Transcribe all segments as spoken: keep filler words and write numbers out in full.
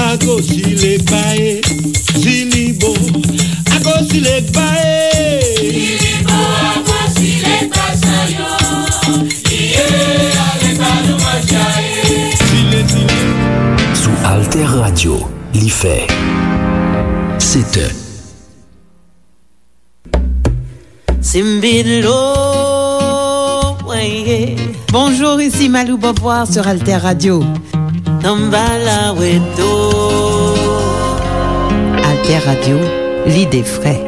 Ago si legba e, si li bo. Ago si legba e. Si li bo, ago si legba sa yo. Iye, ale ba nou manje e. Si le, si le. Sou Alter Radio, li fè sèt è. Simbidlo, weye. Bonjour, ici Malou Beauvoir sur Alter Radio. Tambala weto. Alter Radio, l'idée vraie.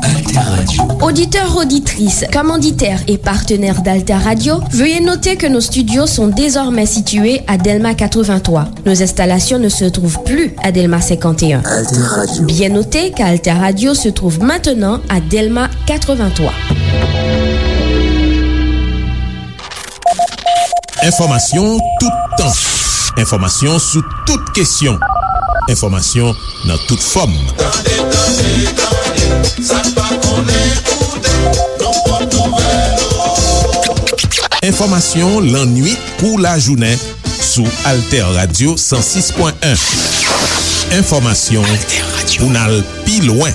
Alter Radio. Auditeurs, auditrices, commanditaires et partenaires d'Alter Radio, veuillez noter que nos studios sont désormais situés à Delma quatre-vingt-trois. Nos installations ne se trouvent plus à Delma cinquante et un. Alter Radio. Bien noter qu'Alter Radio se trouve maintenant à Delma quatre-vingt-trois. Enfòmasyon toutan. Enfòmasyon sou tout kesyon. Enfòmasyon nan tout fòm. Tande, tande, tande, sa n pa konnen koute, nou pot nouvèl. Enfòmasyon lannuit kou lajounen sou Alter Radio san sis pwen en. Enfòmasyon pou n al pi lwen.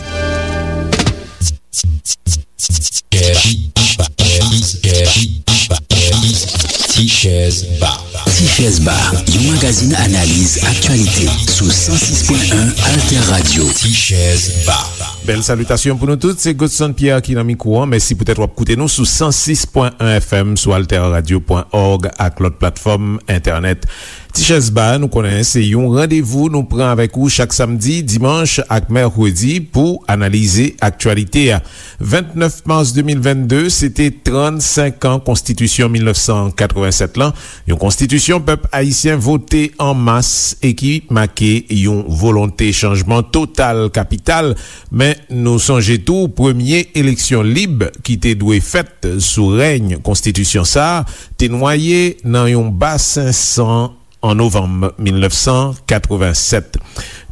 Tichèz Ba. Tichèz Ba, yon magazin analiz aktyalite sou san sis pwen en Alter Radio. Tichèz Ba. Bèl salitasyon pou nou tout, se Godson Pierre ki nan mikwo an. Mèsi poutèt w ap koute nou sou san sis pwen en F M, sou alter radio pwen org ak lòt platfòm entènèt. Tichèz Ba, nou konnen se yon randevou nou pran avèk ou chak samdi, dimanch ak mèkredi pou analize aktyalite a. Vennèf mas de mil vennde, se te trannsenk an Konstitisyon mil nèf san katrevennsèt lan, yon konstitisyon pèp ayisyen vote an mas e ki make yon volonte chanjman total kapital. Men nou sonje tou, premye eleksyon lib ki te dwe fèt sou rèy konstitisyon sa a te nwaye nan yon basen san an novanm mil nèf san katrevennsèt.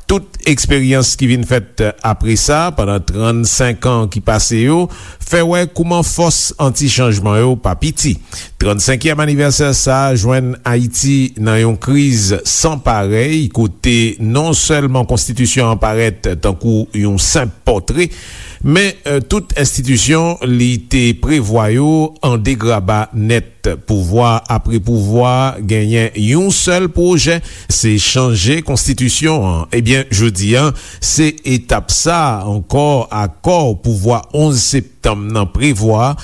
Tout eksperyans ki vin fèt apre sa, pandan trannsenk an ki pase yo, fè wè kouman fòs anti-chanjman yo pa piti. Trannsenkyèm anivèsè sa a jwenn Ayiti nan yon kriz san parèy, kote non sèlman konstitisyon an parèt tankou yon senp pòtre, men, eh, tout enstitisyon li te prevwa yo an degraba nèt. Pouvwa apre pouvwa genyen yon sèl pwojè, se chanje konstitisyon an. Ebyen, jodi a, se etap sa a ankò, akò pouvwa onz septanm nan prevwa,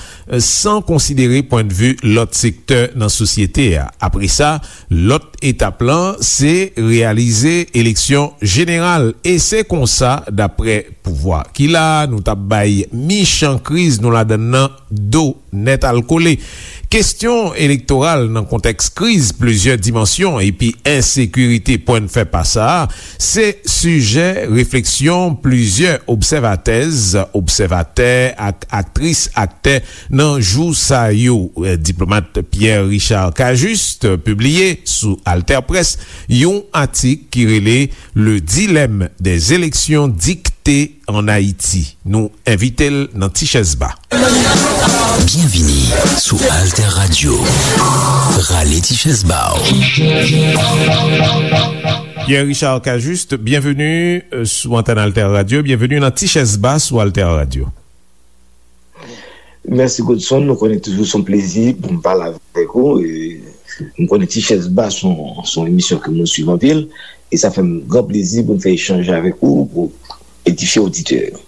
san konsidere pwennvi lòt sektè nan sosyete a. Apre sa, lòt etap lan, se reyalize eleksyon jeneral. E se konsa, daprè pouvwa ki la, nou t ap bay michan kriz nou ladann nan do nèt al kole. Kesyon elektoral nan kontèks kriz plizyè dimansyon epi ensekirite pwennfè pa sa a, se sijè refleksyon plizyè obsèvatèz, obsèvatè ak aktris, aktè nan jou sa yo. Diplomat Pierre Richard Cajuste pibliye sou AlterPresse yon atik ki rele Le dilemme des élections dictées en Haïti. Nou envite l nan Tichèz Ba. Byenvini sou Alter Radio. Rale Tichèz Ba w. Pierre Richard Cajuste, byenveni, euh, sou antèn Alter Radio. Byenveni nan Tichèz Ba sou Alter Radio. Mèsi, Godson. Nou konnen toujou se yon plezi pou m pale avèk ou. E m konnen Tichèz Ba se yon, se yon emisyon ke mwen swiv anpil. E sa fè m gran plezi pou m fè echanj avèk ou, pou edifye oditè yo.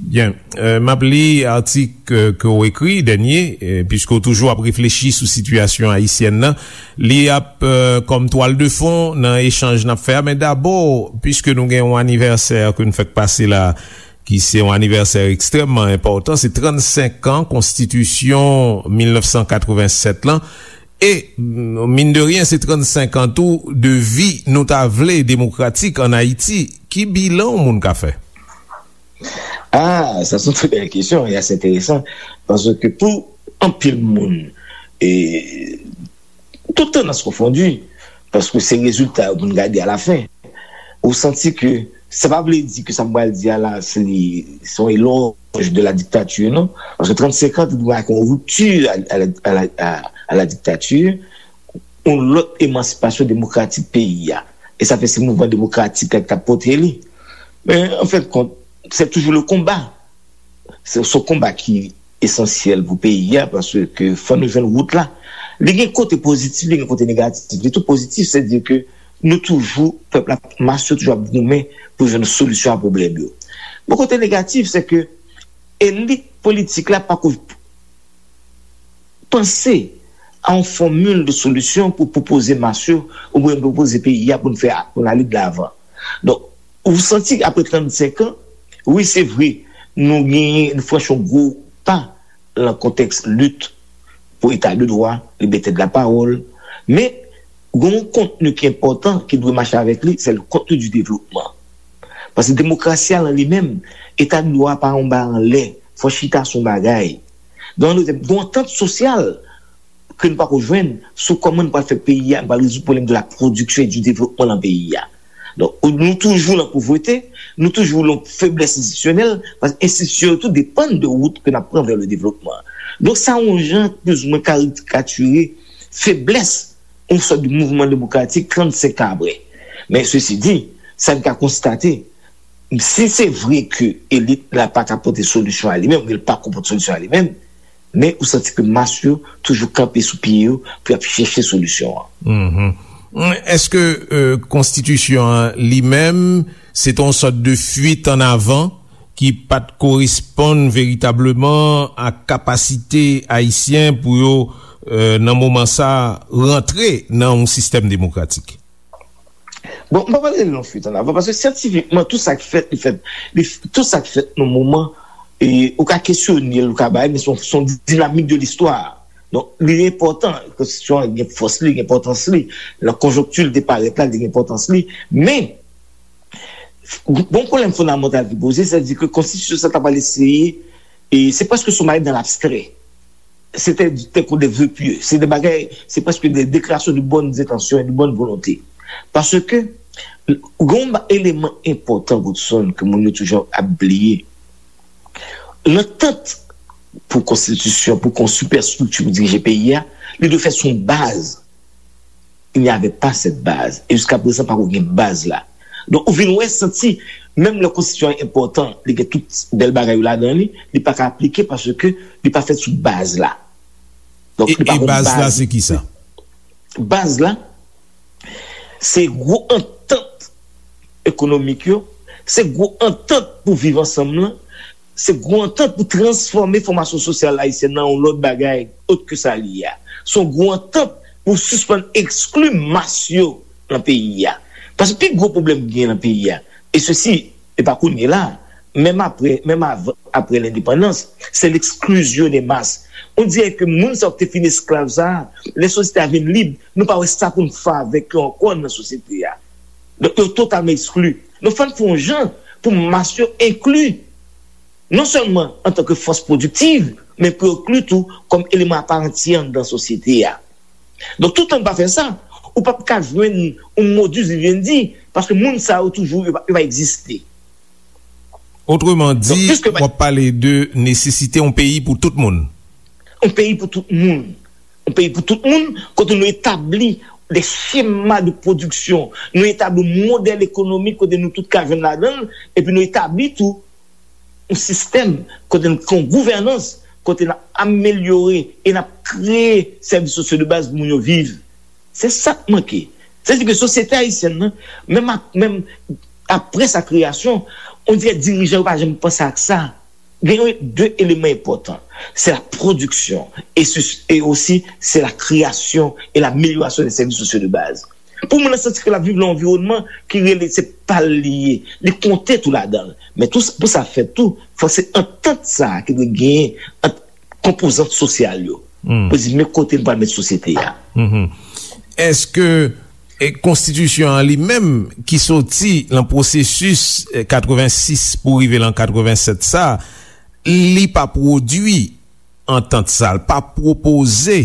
Byen. Euh, m ap li atik, euh, ke w ekri, dènye, euh, piske w toujou ap reflechi sou sitiyasyon ayisyèn nan. Li ap, euh, kòm twal de fon nan echanj n ap fè a. Men dabò, piske nou gen yon anivèsè ke n fèk pase la, ki se yon anivèsè ekstrèmman enpòtan, se trannsenk an Konstitisyon mil nèf san katrevennsèt lan. E, mm, mine de rien, se trannsenk an tou de vi, nou ta vle, demokratik ann Ayiti. Ki bilan yon moun ka fè? Ah, sa se yon trè bèl kesyon e ase enteresan, paske pou anpil moun, e, tout tandans konfondi, paske se rezilta yo pou n gade alafen. Ou santi ke Sa pa vle di ke sa m pral di a la, se li, se yon elòj de la dictature, non. Paske trannsenk an, te dwe gen yon ripti a, a, a, a, a la dictature, yon lòt emansipasyon demokratik peyi a. E sa fè se mouvman demokratik la ki t ap pote li. Men, an fen de kont, se toujou le konba. Se, se yon konba ki esansyèl pou peyi a, paske fò nou jwenn wout la. Li gen kote pozitif, li gen kote negatif. Li tou pozitif, se di ke nou toujou, pèp la, mas yo toujou ap goumen pou jwenn solisyon a pwoblèm yo. Bon, kote negatif, se ke elit politik la pako panse a yon fòmil de solisyon pou pwopoze mas yo, oubyen pwopoze peyi a pou n fè, pou n ale de lavan. Donk, ou santi apre trannsenk an, wi, se vre, nou genyen, nou franchi yon gwo pa nan kontèks lit pou eta de dwa, libète de la pawòl, men gen yon kontni ki enpòtan ki dwe mache avèk li, se le kontni du devlopman. Paske demokrasi a lan li menm, eta de dwa a pa yon bagay anlè, fò chita sou yon bagay. Donk, gen yon antant sosyal ke nou pako jwenn sou kòman nou pral fè peyi a, nou pral rezoud pwoblèm de la production et du développement lan peyi a. Donk, nou toujou lan povrete, nou toujou lan feblès enstitisyonèl, paske enstitisyon yo tou depann de wout ke n ap pran vè le devlopman. Donk, sa yon jan plizoumwen karikatire feblès yon sòt de mouvman demokratik trannsenk an apre. Men, sesi di, sa n ka konstate, si se vre ke elit la pa ka pote solisyon a li menm, oubyen l pako pote solisyon a li menm, men ou santi ke mas yo toujou kanpe sou pye yo pou y ap chèche solisyon an. Mhm. Èske, euh, konstitisyon an li menm, se te yon sòt de fuite en avant ki pa t koresponn veritableman a kapasite ayisyen pou yo, euh, nan moman sa, rantre nan yon sistèm demokratik? Bon, m pa pale de yon fuite en avant, paske syantifikman, tout sa k fèt, li fèt, li, tout sa k fèt nan moman, e, ou ka kesyone l, ou ka bay, men se yon, se yon dinamik de listwa. Donk, li enpòtan, konstitisyon an gen fòs li, gen enpòtans li, nan konjonkti l te parèt la, li gen enpòtans li, men, bon pwoblèm fondamantal ki poze, sètadi ke konstitisyon sa ta pral eseye, e se prèske sou bagay dans l'abstrait. Se te, te kon de vœux pieux. Se de bagay, se prèske de déclaration de bonnes intentions et de bonne volonté. Paske, gen yon eleman enpòtan, Godson, ke moun yo toujou ap bliye. Lantant pou konstitisyon, pou kon sipèstrikti pou dirije peyi a, li dwe fèt sou yon baz. Il n'y avait pas cette base. E jiska prezan, pako gen baz la. Donk, ou vin wè, santi, menm lè konstitisyon an enpòtan, li gen tout bèl bagay yo ladan li, li pa ka aplike paske li pa fèt sou baz la. Donk, e, li pa e gen baz la, baz. Se ki sa? Baz la, se gwo antant ekonomik yo, se gwo antant pou viv ansanm lan, se gwo antant pou transfòme fòmasyon sosyal ayisyèn nan yon lòt bagay, ot ke sa li ye a. Se yon gwo antant pou sispann ekskli mas yo nan peyi a. Paske pi gwo pwoblèm ki gen nan peyi a, e sesi, e pa kounye la, menm apre, menm avan, apre lendepandans, se l'exclusion des masses. On dirait que moun sa yo ki te fin esklav sa a, lè sosyete a vin lib, nou pa wè sa pou n fè avèk yo ankò nan sosyete a. Donk, yo totalman ekskli. Donk, fò n fè yon jan pou mas yo enkli, non sèlman antanke fòs pwodiktiv, men pou yo enkli tou kòm eleman aparantyè anndan sosyete a. Donk, toutan n pa fè sa, ou p ap ka jwenn yon modus vivendi, paske moun sa yo toujou, yo va, yo va egziste. Otreman di, w ap pale de nesesite yon peyi pou tout moun. Yon peyi pou tout moun. Yon peyi pou tout moun, kote nou etabli de chema de pwodiksyon, nou etabli yon modèl ekonomik kote nou tout ka jwenn ladan l, epi nou etabli tou yon sistèm kote n gen yon gouvènans, kote n ap amelyore e n ap kreye sèvis sosyo de baz pou moun yo viv. Se sa k manke. Sètadi ke sosyete ayisyèn nan, menm ak, menm apre sa kreyasyon, on dirè dirijan yo pa janm panse ak sa. Gen yon, de eleman enpòtan. Se la pwodiksyon e, e osi se la kreyasyon e lamelyorasyon de sèvis sosyo de baz. Pou moun nan santi ke l ap viv nan yon anviwònman ki rele se pa l li ye, li konte tou ladan l. Men tou, pou sa fèt tou, fòk se antant sa a ki dwe genyen ant konpozant sosyal yo. Hmm. Pou di, men kote n pral met sosyete a. Mhm. Èske, e, konstitisyon an li menm ki soti nan pwosesis, e, katrevensis pou rive nan katrevensèt sa, li pa pwodui antant sa, l pa pwopoze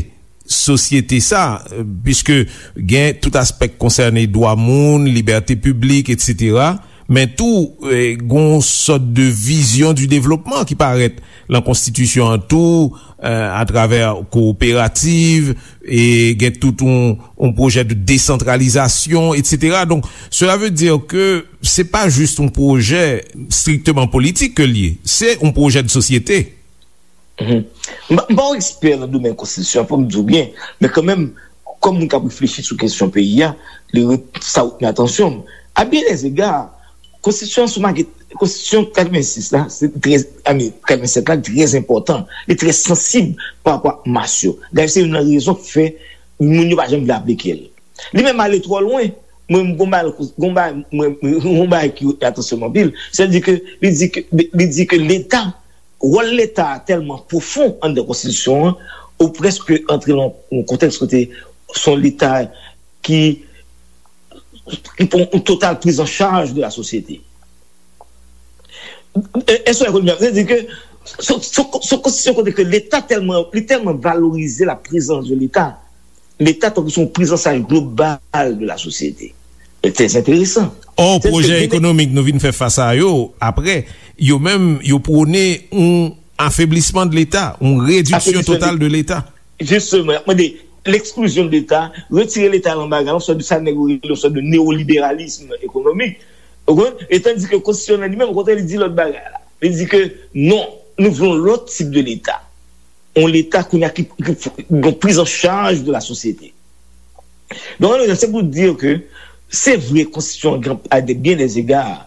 sosyete sa, e, piske gen tout aspè k konsène dwa moun, libète piblik, etsetera. Men tou, eh, gon sòt de vision du développement ki parèt lan konstitisyon an tou, eh, atravè kooperativ, e gen tout yon, yon pwojè de désantralizasyon, et cetera. Donc, cela veut dire que c'est pas juste un projet strictement politique que l ye, c'est un projet de société. Mhm. M pa, m pa yon ekspè nan domèn konstitisyon an, fò m di w byen, men kanmenm, kòm moun k ap reflechi sou kesyon peyi a, li ret, sa retni atansyon m. A bien des égards, konstitisyon an sou makèt, konstitisyon katrevensis la, se trè, I mean, katrevennsèt la, trè enpòtan, li trè sansib pa rapò ak mas yo. Dayè, se youn nan rezon k fè moun yo pa janm vle aplike l. Li menm ale twò lwen. Mwen, m gon bagay, gon bagay, mwen, mwen, gon bagay ki atansyon m anpil, se di ke, li di ke, li di ke Leta, wòl Leta a tèlman pwofon anndan konstitisyon an, ou prèske antre nan yon kontèks kote se yon Leta ki, ki pran yon total prise en charge de la société. Èske w konprann? Sa vle di ke se, se, se yon konstitisyon kote ke Leta tèlman, li tèlman valorize la prezans de Leta. Leta tankou se yon prizanchaj global de la sosyete. Trè enteresan. Ò, pwojè ekonomik nou vin fè fas a yo, apre, yo menm, yo pwone yon afeblisman de Leta, yon rediksyon total de Leta. Jisteman, y ap mande l'exclusion de Leta, retire Leta nan bagay la, yon sòt de sa nèg yo rele yon sòt de newoliberalism ekonomik. Ou konprann? E tandis ke konstitisyon an li menm, okontrè, li di lòt bagay la. Li di ke non, nou vle yon lòt tip de Leta. Yon Leta kounye a ki, ki, ki gen prizanchaj de la sosyete. Donk, ann, se pou di ke se vre, konstitisyon an, a de bien des égards,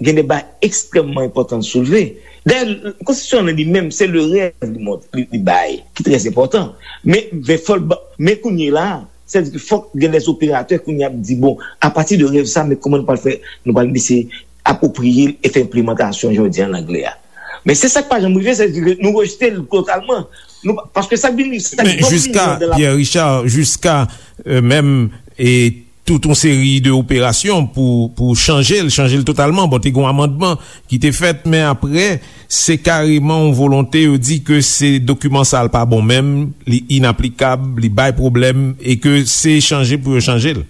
gen de bagay ekstrèmman enpòtan l soulve. Dayè, konstitisyon an li menm, se le rèv li mont-, li, li bay, ki trè enpòtan. Men, men fò l ba-, men kounye la, sètadi ke fòk gen de operatè kounye a ap di, bon, apati de rèv sa, men kòman nou pral fè, nou pral eseye apwopriye l e fè enplimantasyon, jan yo di an anglè a. Men se sa k pa janm rive, sètadi ke nou rejte l totalman. Nou pa, paske sa k vin, sa k vin Men jiska, Pierre Richard, jiska, euh, menm, e tout yon seri de operasyon pou, pou chanje l, chanje l totalman. Bon, te gen yon amandman ki te fèt, men apre, se kareman yon volonte, yo di ke se dokiman sa l pa bon menm, li inaplikab, li bay pwoblèm, e ke se chanje pou yo chanje l.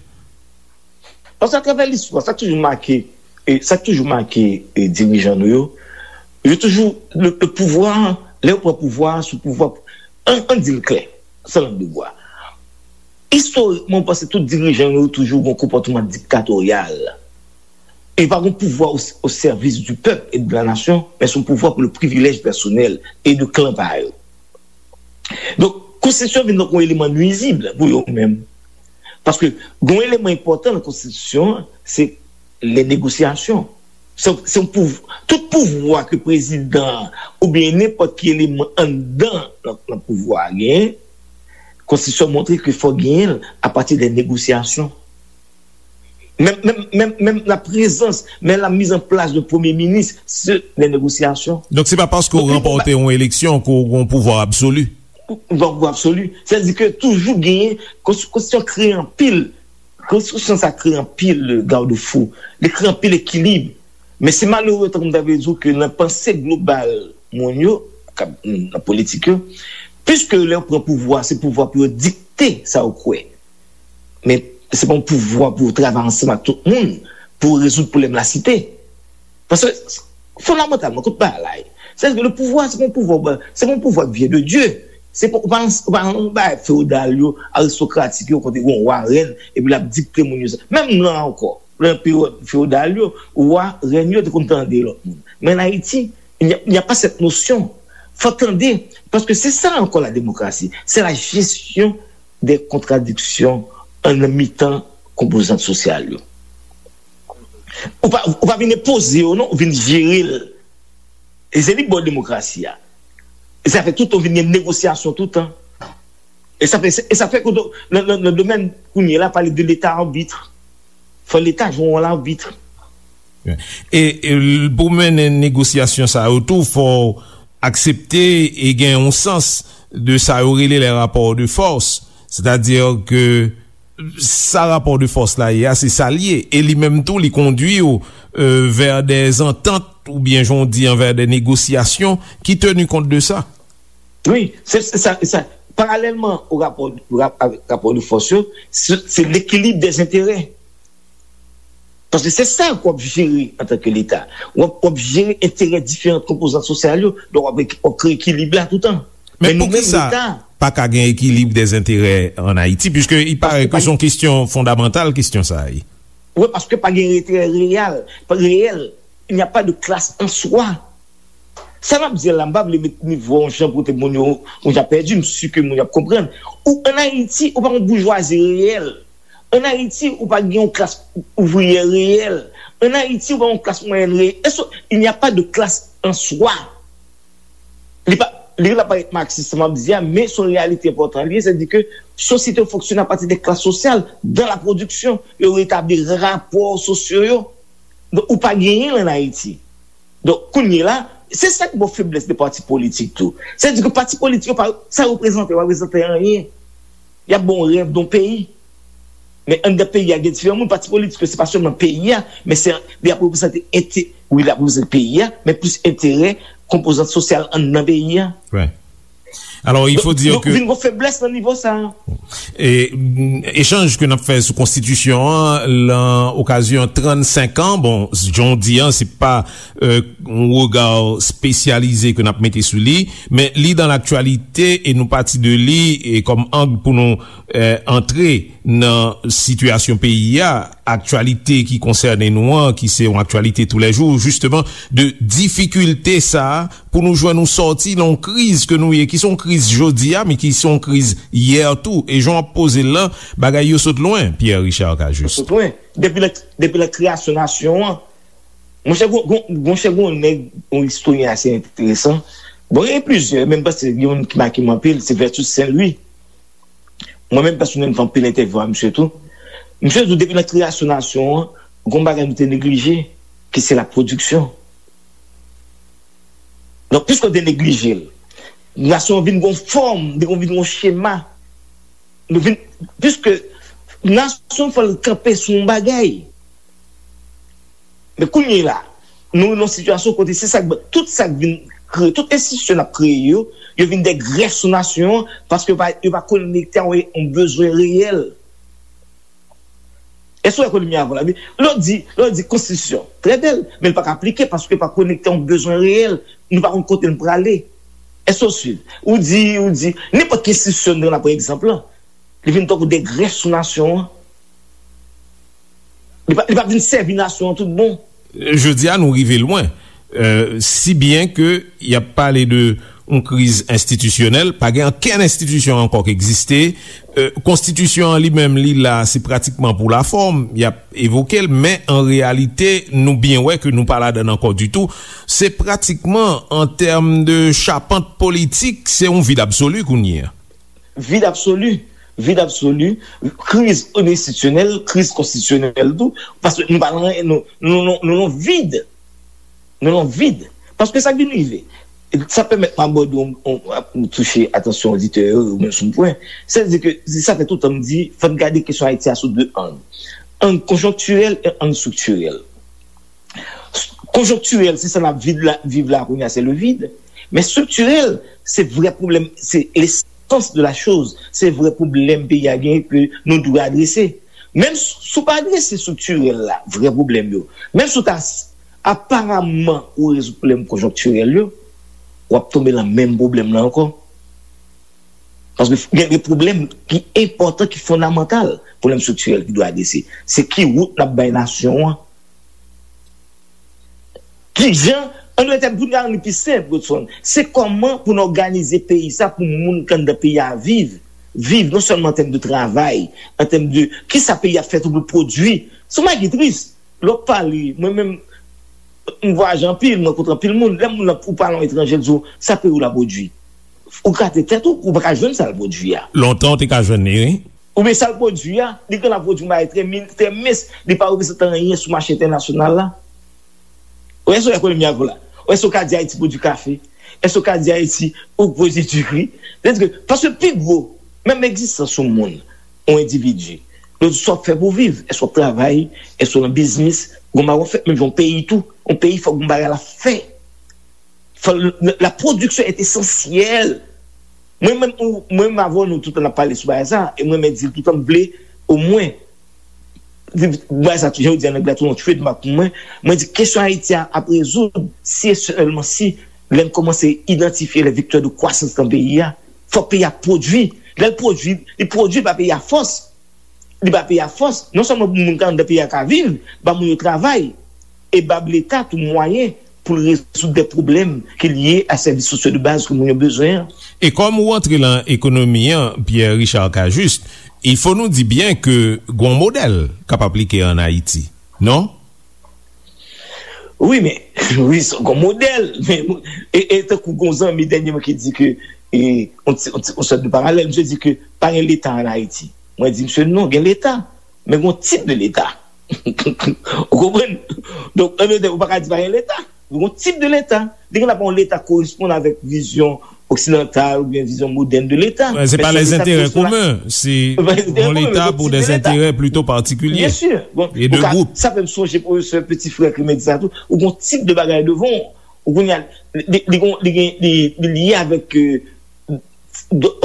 Paske atravè listwa, sa k toujou make, e, sa k toujou make, e, dirijan nou yo, yo toujou, le, le pouvwa, lè yo pran pouvwa, sou pouvwa, ann, ann di l klè, san lang de bwa. Istorikman, ou panse tout dirijan yo toujou gen yon konpòtman diktatoryal. E pa gen pouvwa o, o sèvis du peuple et de la nation, men se yon pouvwa pou le privilèj pèsonèl e de klan pa yo. Donk, konstitisyon vin tankou yon eleman nwizib pou yo menm. Paske gen yon eleman enpòtan nan konstitisyon an, se les négociations. Se, se yon pouv-, tout pouvwa ke prezidan an oubyen nenpòt ki eleman anndan nan, nan pouvwa a genyen, konstitisyon montre ke fò genyen l apati de negosyasyon. Menm, menm, menm, menm la prezans, menm la mise en place de premye minis, se de negosyasyon. Donk, se pa paske w ranpòte yon eleksyon ke w gen yon pouvwa absoli. Yon pouvwa absoli. Sètadi ke toujou genyen, konsti-, konstitisyon kreye anpil, konstitisyon sa kreye anpil, euh, garde-fou. Li kreye anpil ekilib. Men se malere, tankou m ta vle di w, ke nan panse global moun yo, k ap, nan politik yo, piske lè yo pran pouvwa, se pouvwa pou yo dikte sa yo kwè. Men se pa yon pouvwa pou yo travay ansanm ak tout moun pou rezoud pwoblèm lasite. Paske, fondamantalman, kote bagay la ye, sètadi ke le pouvwa, se pa yon pouvwa, se pa yon pouvwa ki vyen de Dye. Se pa, ou pa nan, ou pa nan bagay fewodal yo, aristokratik yo, kote gen yon wa, rèn, epi l ap dikte moun yo sa. Menm la ankò, nan peryòd fewodal yo, wa, rèn yo te konn tande lòt moun. Men an Ayiti, il n'y a, il n'y a pas cette notion. Fò tande, paske se sa ankò la démocratie. C'est la gestion des contradictions an nan mitan konpozant sosyal yo. Ou pa, ou pa vin enpoze yo, non, ou vin jere l. E se li k ba w demokrasi a. E sa fè tout tan vin gen negosyasyon tout tan. E sa fè, e sa fè ke nan, nan, nan domèn kounye a la, pale de leta arbitre. Fò leta jwe yon wòl arbitre. E, e pou mennen negosyasyon sa yo tou, fò w aksepte e gen yon sans de sa yo rele les rapports de force. Sètadi ke sa rapò de fòs la ye a, se sa l ye. E li menm tou, li kondui w, euh, vers des ententes, oubyen, jan w di an, vers des négociations qui tenir compte de ça. Wi, se, se sa, se sa. Paralèlman o rapò, rap-, avèk rapò de fòs yo, se, se l'équilibre des intérêts. Paske se sa ke w ap jere antanke Leta. W ap, w ap jere enterè diferan konpozant sosyal yo, donk w ap, w ap kreye ekilib la toutan. Men Men nou menm, poukisa Leta, pa ka gen ekilib dèzenterè ann Ayiti, piske i parè ke se yon kesyon fondamantal, kesyon sa a ye. Wi, paske pa gen enterè reyèl, reyèl. Il n'y a pas de classe en soi. Sa m ap di la, m pa vle met nivo yon jan pou te moun yo, moun yo ap pèdi, m si ke moun yo ap konprann. Ou ann Ayiti, ou pa yon boujwazi reyèl. Ann Ayiti, ou pa gen yon klas ouvriyè reyèl. Ann Ayiti, ou pa yon klas mwayèn reyèl. Èske il n'y a pas de classe en soi? Li pa, li la parèt maksis, sa m ap di a, men se yon reyalite enpòtan li ye, sètadi ke sosyete yo fonksyone apati de klas sosyal, dans la production, yo retabli rapò sosyo yo. Donk, ou pa genyen l ann Ayiti. Donk, kounye la, se sa k ba w feblès de pati politik tou. Sètadi ke pati politik yo pa, sa yo reprezante, yo pa reprezante anyen. Y ap ba w rèv de yon peyi. Men anndan peyi a, gen diferan moun. Pati politik yo, se pa sèlman peyi a, men se, y ap reprezante ente-, wi, y ap reprezante peyi a, men plis enterè konpozant sosyal anndan peyi a. Alò, il faut dire que vin gon feblès nan nivo sa a. E, mm, echanj ke n ap fè sou konstitisyon an, lan okazyon trannsenk an, bon, jan w di an, se pa, euh, yon rega espesyalize ke n ap mete sou li, men li dans l'actualité e nou pati de li e kòm ang pou nou, euh, antre nan sitiyasyon peyi a, aktyalite ki konsène nou an, ki se yon aktyalite toulèjou, jisteman, de difikilte sa a pou nou jwenn yon sòti nan yon kriz ke nou ye, ki se yon kriz jodi a, men ki se yon kriz yè tou. E jan w ap poze l lan, bagay yo sot lwen, Pierre Richard Cajuste. Sot lwen. Depi la, depi la kreyasyon nasyon an, monchè, gon, gon, monchè, gon nèg, yon istoryen ase enteresan. Bon, gen plizyè, men m panse gen youn ki make m anpil, se Vertus Saint Louis. Mwen menm pèsonèl, m fè anpil entèvyou a misye tou. Misye di w depi nan kreyasyon nasyon an, gon bagay nou te neglije, ki se la pwodiksyon. Donk, piske w te neglije l, nasyon an vin gon fòm, li vin gon chema. Nou vin, piske nasyon fò l kanpe sou yon bagay. Men kounye la, nou nan yon sitiyasyon kote se sa k, tout sa k vin kreye, tout enstitisyon n ap kreye yo, yo vin de grèf sou nasyon an, paske yo pa, yo pa konekte a yon, yon bezwen reyèl. Èske w wè kote m ye avè w la? Lè w di, lè w di konstitisyon, trè bèl, men l pa ka aplike paske l pa konekte a yon bezwen reyèl. Nou pa konn kote n prale. Èske w swiv? Ou di, ou di, nenpòt ki enstitisyon nou pran, pa egzanp lan, li vin tankou de grèf sou nasyon an. Li pa, li pa vin sèvi nasyon an tout bon. Jodi a, nou rive lwen. Euh, si byen ke y ap pale de yon kriz enstitisyonèl, pa gen okenn enstitisyon ankò k egziste. Euh, konstitisyon an li menm, li la, se pratikman pou lafòm, y ap evoke l, men an reyalite, nou byen wè ke nou pa ladan l ankò ditou. Se pratikman, an tèm de chapant politik, se yon vid absoli kounye a. Vid absoli, vid absoli, kriz enstitisyonèl, kriz konstitisyonèl tou, paske nou pa nan, nou, nou, nou, nou nan vid. Nou nan vid. Paske sa k vin rive, sa pèmèt m abòde yon, yon, yon touche atansyon oditè yo, yo menm sou yon pwen. Sètadi ke, se sa fè toutan m di, fò n gade kesyon Ayiti a sou de ang. Ang konjonktirèl e ang estriktirèl. Konjonktirèl, se sa n ap viv la, viv la kounye a, se le vide. Men estriktirèl, se vrè pwoblèm, se lesans de la choz, se vrè pwoblèm peyi a genyen ke nou dwe adrese. Menm si w pa adrese estriktirèl la, vrè pwoblèm yo, menm si w ta s-, aparaman ou rezoud pwoblèm konjonktirèl yo, w ap tonbe nan menm pwoblèm nan ankò. Paske gen de pwoblèm ki enpòtan, ki fondamantal, pwoblèm estriktirèl ki dwe adrese. Se ki wout n ap bay nasyon an? Kijan, an dòt tèm, pou n rann li pi senp, Godson, se kòman pou n òganize peyi sa pou moun k anndan peyi a viv, viv non sèlman an tèm de travay, an tèm de kisa peyi a fè tou pou l pwodui. Se yon bagay ki tris. Lè w ap pale, mwen menm, m vwayaje anpil, m rankontre anpil moun. Lè moun nan, ou pale yon etranjè, l di w, sa peyi w la pwodui. Ou gate tèt ou, ou pa ka jwenn sa l pwodui a. Lontan, w te ka jwenn li, wi. Oubyen sa l pwodui a, li gen la pwodui yon bagay trè min-, trè mens, li pa reprezante anyen sou mache entènasyonal la. Ou èske w ekonomi avè w la? Ou èske w ka di Ayiti pwodui kafe? Èske w ka di Ayiti ou pwodui diri? Sètadi ke, paske pi gwo, menm egzistans yon moun, yon endividi, yo di sa w ap fè pou w viv. Èske w ap travay? Èske w nan biznis? Gon bagay w ap fè? Menm jan yon peyi tou, yon peyi fòk gon bagay l ap fè. Fò l, la production est essentielle. Mwen menm, ou, mwen menm avè w, nou toutan n ap pale sou bagay sa, e mwen menm di l toutan m vle, omwen, Bagay sa, jan yo di an anglè, tou yon trademark pou mwen. Mwen di kesyon Ayiti a ap rezoud si e sèlman si lè n kòmanse idantifye les vecteurs de croissance nan peyi a. Fòk peyi a pwodui. Lè l pwodui, li pwodui ba peyi a fòs. Li ba peyi a fòs. Non sèlman pou moun k anndan peyi a ka viv, ba moun yo travay, e ba Leta tou mwayen pou l rezoud de pwoblèm ki lye a sèvis sosyo de baz ke moun yo bezwen an. E kòm ou antre lan ekonomi an, Pierre Richard Cajuste, il faut nou di byen ke gon modèl k ap aplike an Ayiti, non? Wi, men, wi, se gon modèl. Men, e, e tankou gon zanmi dènyèman ki di ke, e, on ti, on ti, on sòt de paralèl, misye di ke pa gen Leta an Ayiti. Mwen di misye non, gen Leta, men gon tip de Leta. Ou konprann? Donk, an menm tan, ou pa ka di pa gen Leta. Gon tip de Leta. Li gen ap yon Leta koresponn avèk vizyon oksidantal oubyen vizyon modèn de Leta. Se pa lèzenterè komen, se yon Leta pou dèzenterè plito patikilye e de gwoup. Sa fè m sonje pwofesè Petit Frère ki te di sa tou. Ou gon tip de bagay devan w. Ou kounye a, li, li, li, li, li lye avèk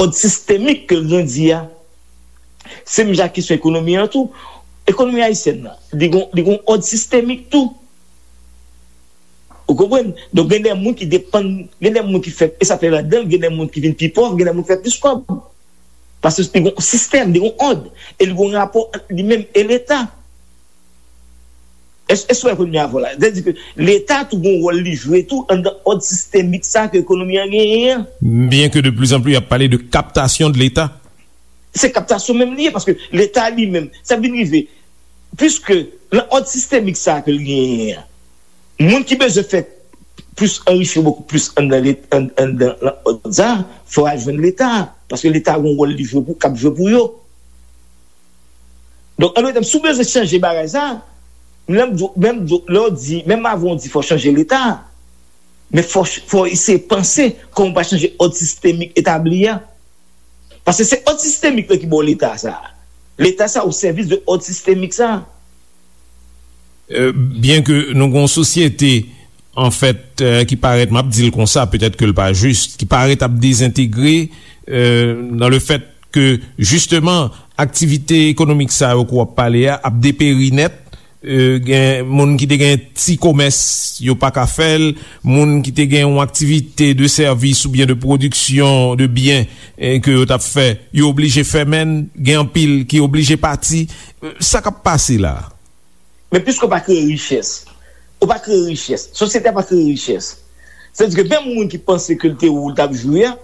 òd sistemik ke l grandi a. Se menm jan ak kesyon ekonomi an tou. Ekonomi ayisyèn nan, li gon, li gon òd sistemik tou. Ou konprann? Donk, gen de moun ki depann, gen de moun ki fè, e sa fè ladan, gen de moun ki vin pi pòv, gen de moun ki fè plis kòb. Paske li gon sistèm, li gon òd, e li gon rapò ant li menm e Leta. Èske, èske w wè premye avwa la? Sètadi ke Leta tou gon wòl li jwe tou anndan òd sistemik sa ke ekonomi an genyen an. Byen ke de plus en plus y ap pale de captation de l'État. Se kaptasyon menm li ye, paske Leta li menm, sa vin rive, piske nan òd sistemik sa ke l genyen an, moun ki bezwen fè plis anrichi yo bokou plis anndan, anndan òd sa, fò y al jwenn Leta, paske Leta gon wòl li jwe pou, k ap jwe pou yo. Donk, an dòt tèm, si w bezwen chanje bagay sa, menm, menm lè w di, menm avan w di fò chanje Leta, men fò, fò eseye panse kòman w pa chanje òd sistemik etabli a. Paske se òd sistemik la ki ba w Leta sa. Leta sa o sèvis de òd sistemik sa. Byen ke nou gen yon sosyete, anfèt, ki parèt, m ap di l konsa, petèt ke l pa jis, ki parèt ap dezentegre, nan le fèt ke, jisteman, aktivite ekonomik sa yo ke w ap pale a ap deperi nèt. Gen moun ki te gen ti komès, yo pa ka fè l. Moun ki te gen yon aktivite de sèvis oubyen de pwodiksyon de byen ke yo t ap fè, yo oblije fèmen l. Gen anpil ki oblije pati. Sa k ap pase la? Men piske w pa kreye richès, ou pa kreye richès, sosyete a pa kreye richès. Sètadi ke menm moun ki panse ke l te ou l t ap jwe a,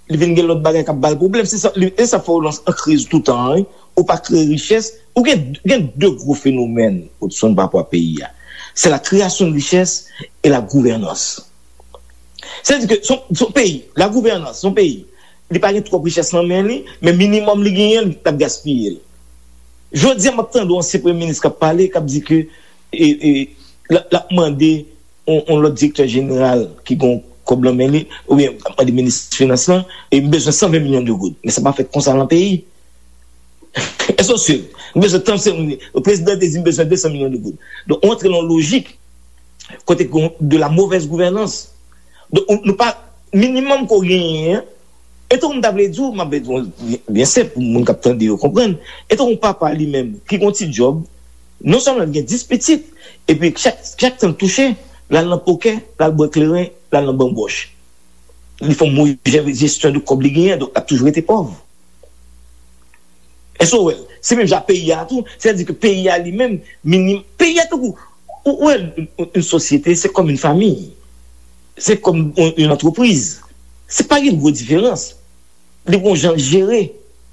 li vin gen lòt bagay k ap ba l pwoblèm. Se sa, e sa fè w lan an kriz toutan an, wi. Ou pa kreye richès. Ou gen, gen de gwo fenomèn, Hudson, pa rapò a peyi a. C'est la création de richesse et la gouvernance. Sètadi ke se yon, se yon peyi, la gouvernance, se yon peyi, li pa gen twòp richès nan men li, men minimòm li genyen, l ap gaspiye l. Jodi a, m ap tande yon ansyen premye minis k ap pale, k ap di ke, e, e, l ap, l ap mande yon, yon lòt direktè jeneral ki gen kòb nan men li, oubyen l ap mande minis finans lan, e m bezwen san ven milyon de goud. Men sa pa fèt konsa nan peyi. Èske w swiv? M bezwen tan, se prezidan te di m bezwen de san milyon de goud. Donk, ou antre nan yon lojik kote ke de la mauvaise gouvernance. Donk, ou, nou pa, minimòm ke w genyen an, e tankou m ta vle di w, m ap di w byen, byen senp pou moun k ap tande yo konprann. E tankou yon papa li menm ki gen yon ti djòb, non sèlman l gen dis pitit, epi chak, chak tan l touche, l al nan pokè, l al bwè kleren, l al nan banbòch. Li fè yon move jesyon de kòb li genyen, donk l ap toujou rete pòv. Èske w wè l? Se menm jan peyi a tou. Sètadi ke peyi a li menm, minim, peyi a tankou, ou, ou wè, yon, yon, yon sosyete, se kòm yon fanmi. Se kòm yon, yon antrepriz. Se pa gen gwo diferans. Li gon jan l jere.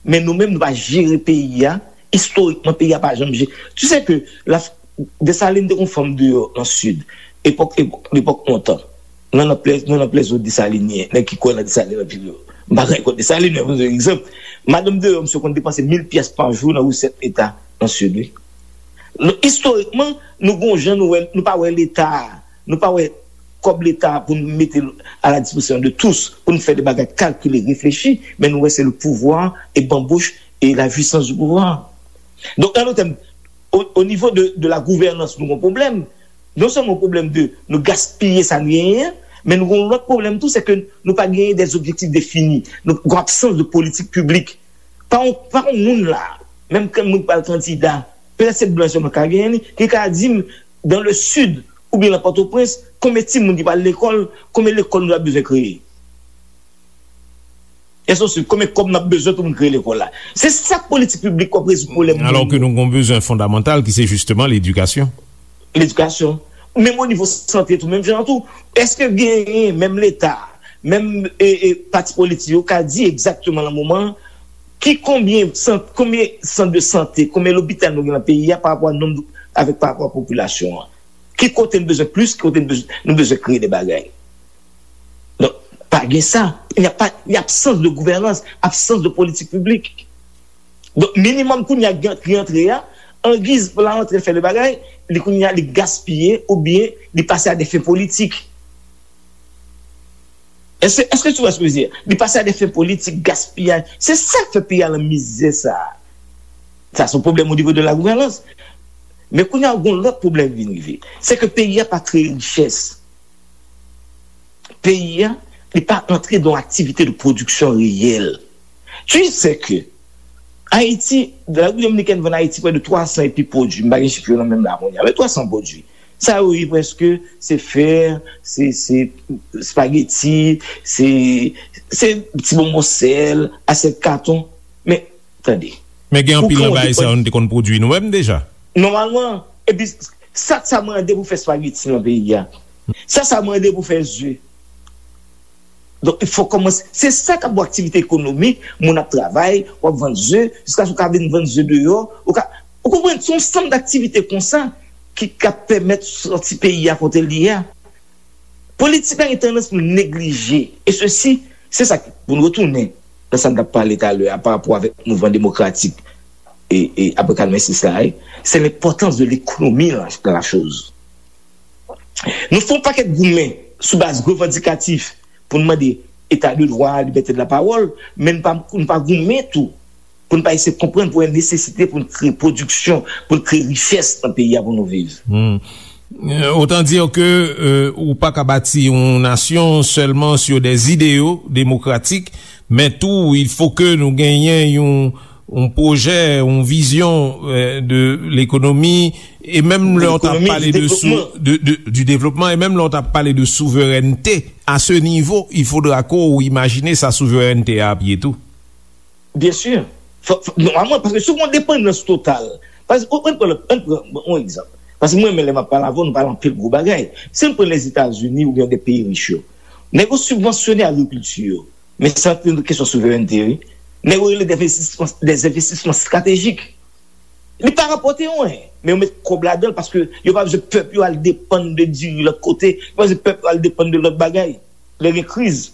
Men nou menm, nou pa jere peyi a. Istorikman, peyi a pa janm jere. Tu sais que la, Desalin te gon fanm deyò nan Sid. Epòk, epòk, lepòk lontan. Nan, nan plè, nan, nan plèzo Desalin ye. Nèg ki kwè nan Desalin anpil yo. M pa gen kont Desalin, men pou egzanp. Madanm deyò, misye konn depanse mil pyès pa jou nan resèt leta nan Sid, wi. Donk, istorikman, nou gon jan nou wè, nou pa wè leta a. Nou pa wè kòb leta a pou n mete l a la dispozisyon de tous, pou n fè de bagay kalkile, reflechi, men nou wè se le pouvoir e banbòch e la jouissance du pouvoir. Donk, an dòt tèm, o, o nivo de, de la gouvènans, nou gon pwoblèm. Non sèlman yon pwoblèm de nou gaspiye sa n genyen an, men nou gon lòt pwoblèm tou, se ke nou pa genyen des objectifs définis. Nou gon absans de politik piblik. Pa yon, pa yon moun la, menm ke moun pral kandida, Petèt se blan sèlman k ka genyen li, ki ka di m, dans le sud, oubyen nan Pòtoprens, konbyen timoun ki pral lekòl, konbyen lekòl nou ta bezwen kreye. Èske w swiv? Konbyen kòb n ap bezwen pou n kreye lekòl la? Se sa k politik piblik k ap rezoud pwoblèm moun yo. Alò ke nou gen yon bezwen fondamantal ki se jisteman ledikasyon. Ledikasyon. Menm o nivo sante tou, menm jan an tou. Èske genyen menm Leta, menm, e, e, pati politik yo ka di egzakteman nan moman an ki konbyen sant, konbyen sant de sante, konbyen lopital nou gen nan peyi a pa rapò a nonb, avèk pa rapò a popilasyon an? Ki kote n bezwen plis, ki kote n bezwen, nou bezwen kreye de bagay? Donk, pa gen sa. Il n'y a pas, il y a absence de gouvernance, absence de politik piblik. Donk, minimòm kounye a ki rantre a, angiz pou la rantre fè de bagay, li kounye a li gaspiye oubyen li pase a de fen politik. Èske, èske tu vois ce que je veux dire? Li pase a de fen politik, gaspiyaj. Se sa k fè peyi a nan mizè sa a. Sa se yon pwoblèm o nivo de la gouvènans. Men kounye a, gen yon lòt pwoblèm vin rive. Se ke peyi a pa kreye richès. Peyi a, li pa antre dan aktivite de pwodiksyon reyèl. Tu sais que Ayiti, Repiblik Dominikèn vann Ayiti prè de twa san epi pwodui. M pa gen chif yo nan men m la kounye a, men twa san pwodui. Sa yo ye prèske, se fè, se, se espageti, se, se ti bonbon sèl, asyèt katon. Men, tande. Men gen anpil nan bagay sa yo nou te konn pwodui nou menm deja. Nòmalman, epi sa, sa mande pou fè espageti nan peyi a. Sa, sa mande pou fè ze. Donk, il faut kòmanse. Se sa k ap bon aktivite ekonomik, moun ap travay, w ap vann ze, jiskaske w ka vin vann ze deyò, ou ka, ou konprann, se yon sanm daktivite konsa ki, k ap pèmèt sòti peyi a kote l ye a. Politik la gen tandans pou l neglije. E sesi, se sa k, pou n retounen nan sa n t ap pale talè a pa rapò avèk mouvman demokratik e, e apre katrevensis la, e, se lenpòtans de lekonomi nan, nan la choz. Nou fè yon pakèt goumen sou baz revandikatif pou n mande eta de dwa, libète de la pawòl, men n pa, n pa goumen tou pou n pa eseye konprann pou gen nesesite pou n kreye pwodiksyon, pou n kreye richès nan peyi a pou nou viv. Hmm. Euh, autant dire que, euh, ou pa ka bati yon nasyon sèlman sur des idéaux démocratiques, men tou, il faut que nou genyen yon, yon pwojè, yon vizyon, euh, de lekonomi, e menm lè w t ap pale de sou-, de, de, du développement, e menm lè w t ap pale de souverènte, à ce niveau, il faudra que ou imajine sa souverènte a ap ye tou. Byen si. Fò, fò, nòmalman, paske si w gen yon depandans total, paske, ann pran, ann pran yon egzanp. Paske mwen menm, lè m ap pale avè w, nou pale anpil gwo bagay. Si n pran Lèzetazini oubyen de peyi rich yo, nèg yo sibvansyone agrikilti yo. Men sa se yon kesyon souverènte, wi. Nèg yo rele des investissements, des investissements stratégiques. Li pa rapòte anyen, men yo met kòb ladan l paske yo pa bezwen pèp yo al depann de diri lòt kote, yo pa bezwen pèp yo al depann de lòt bagay. Lè gen kriz.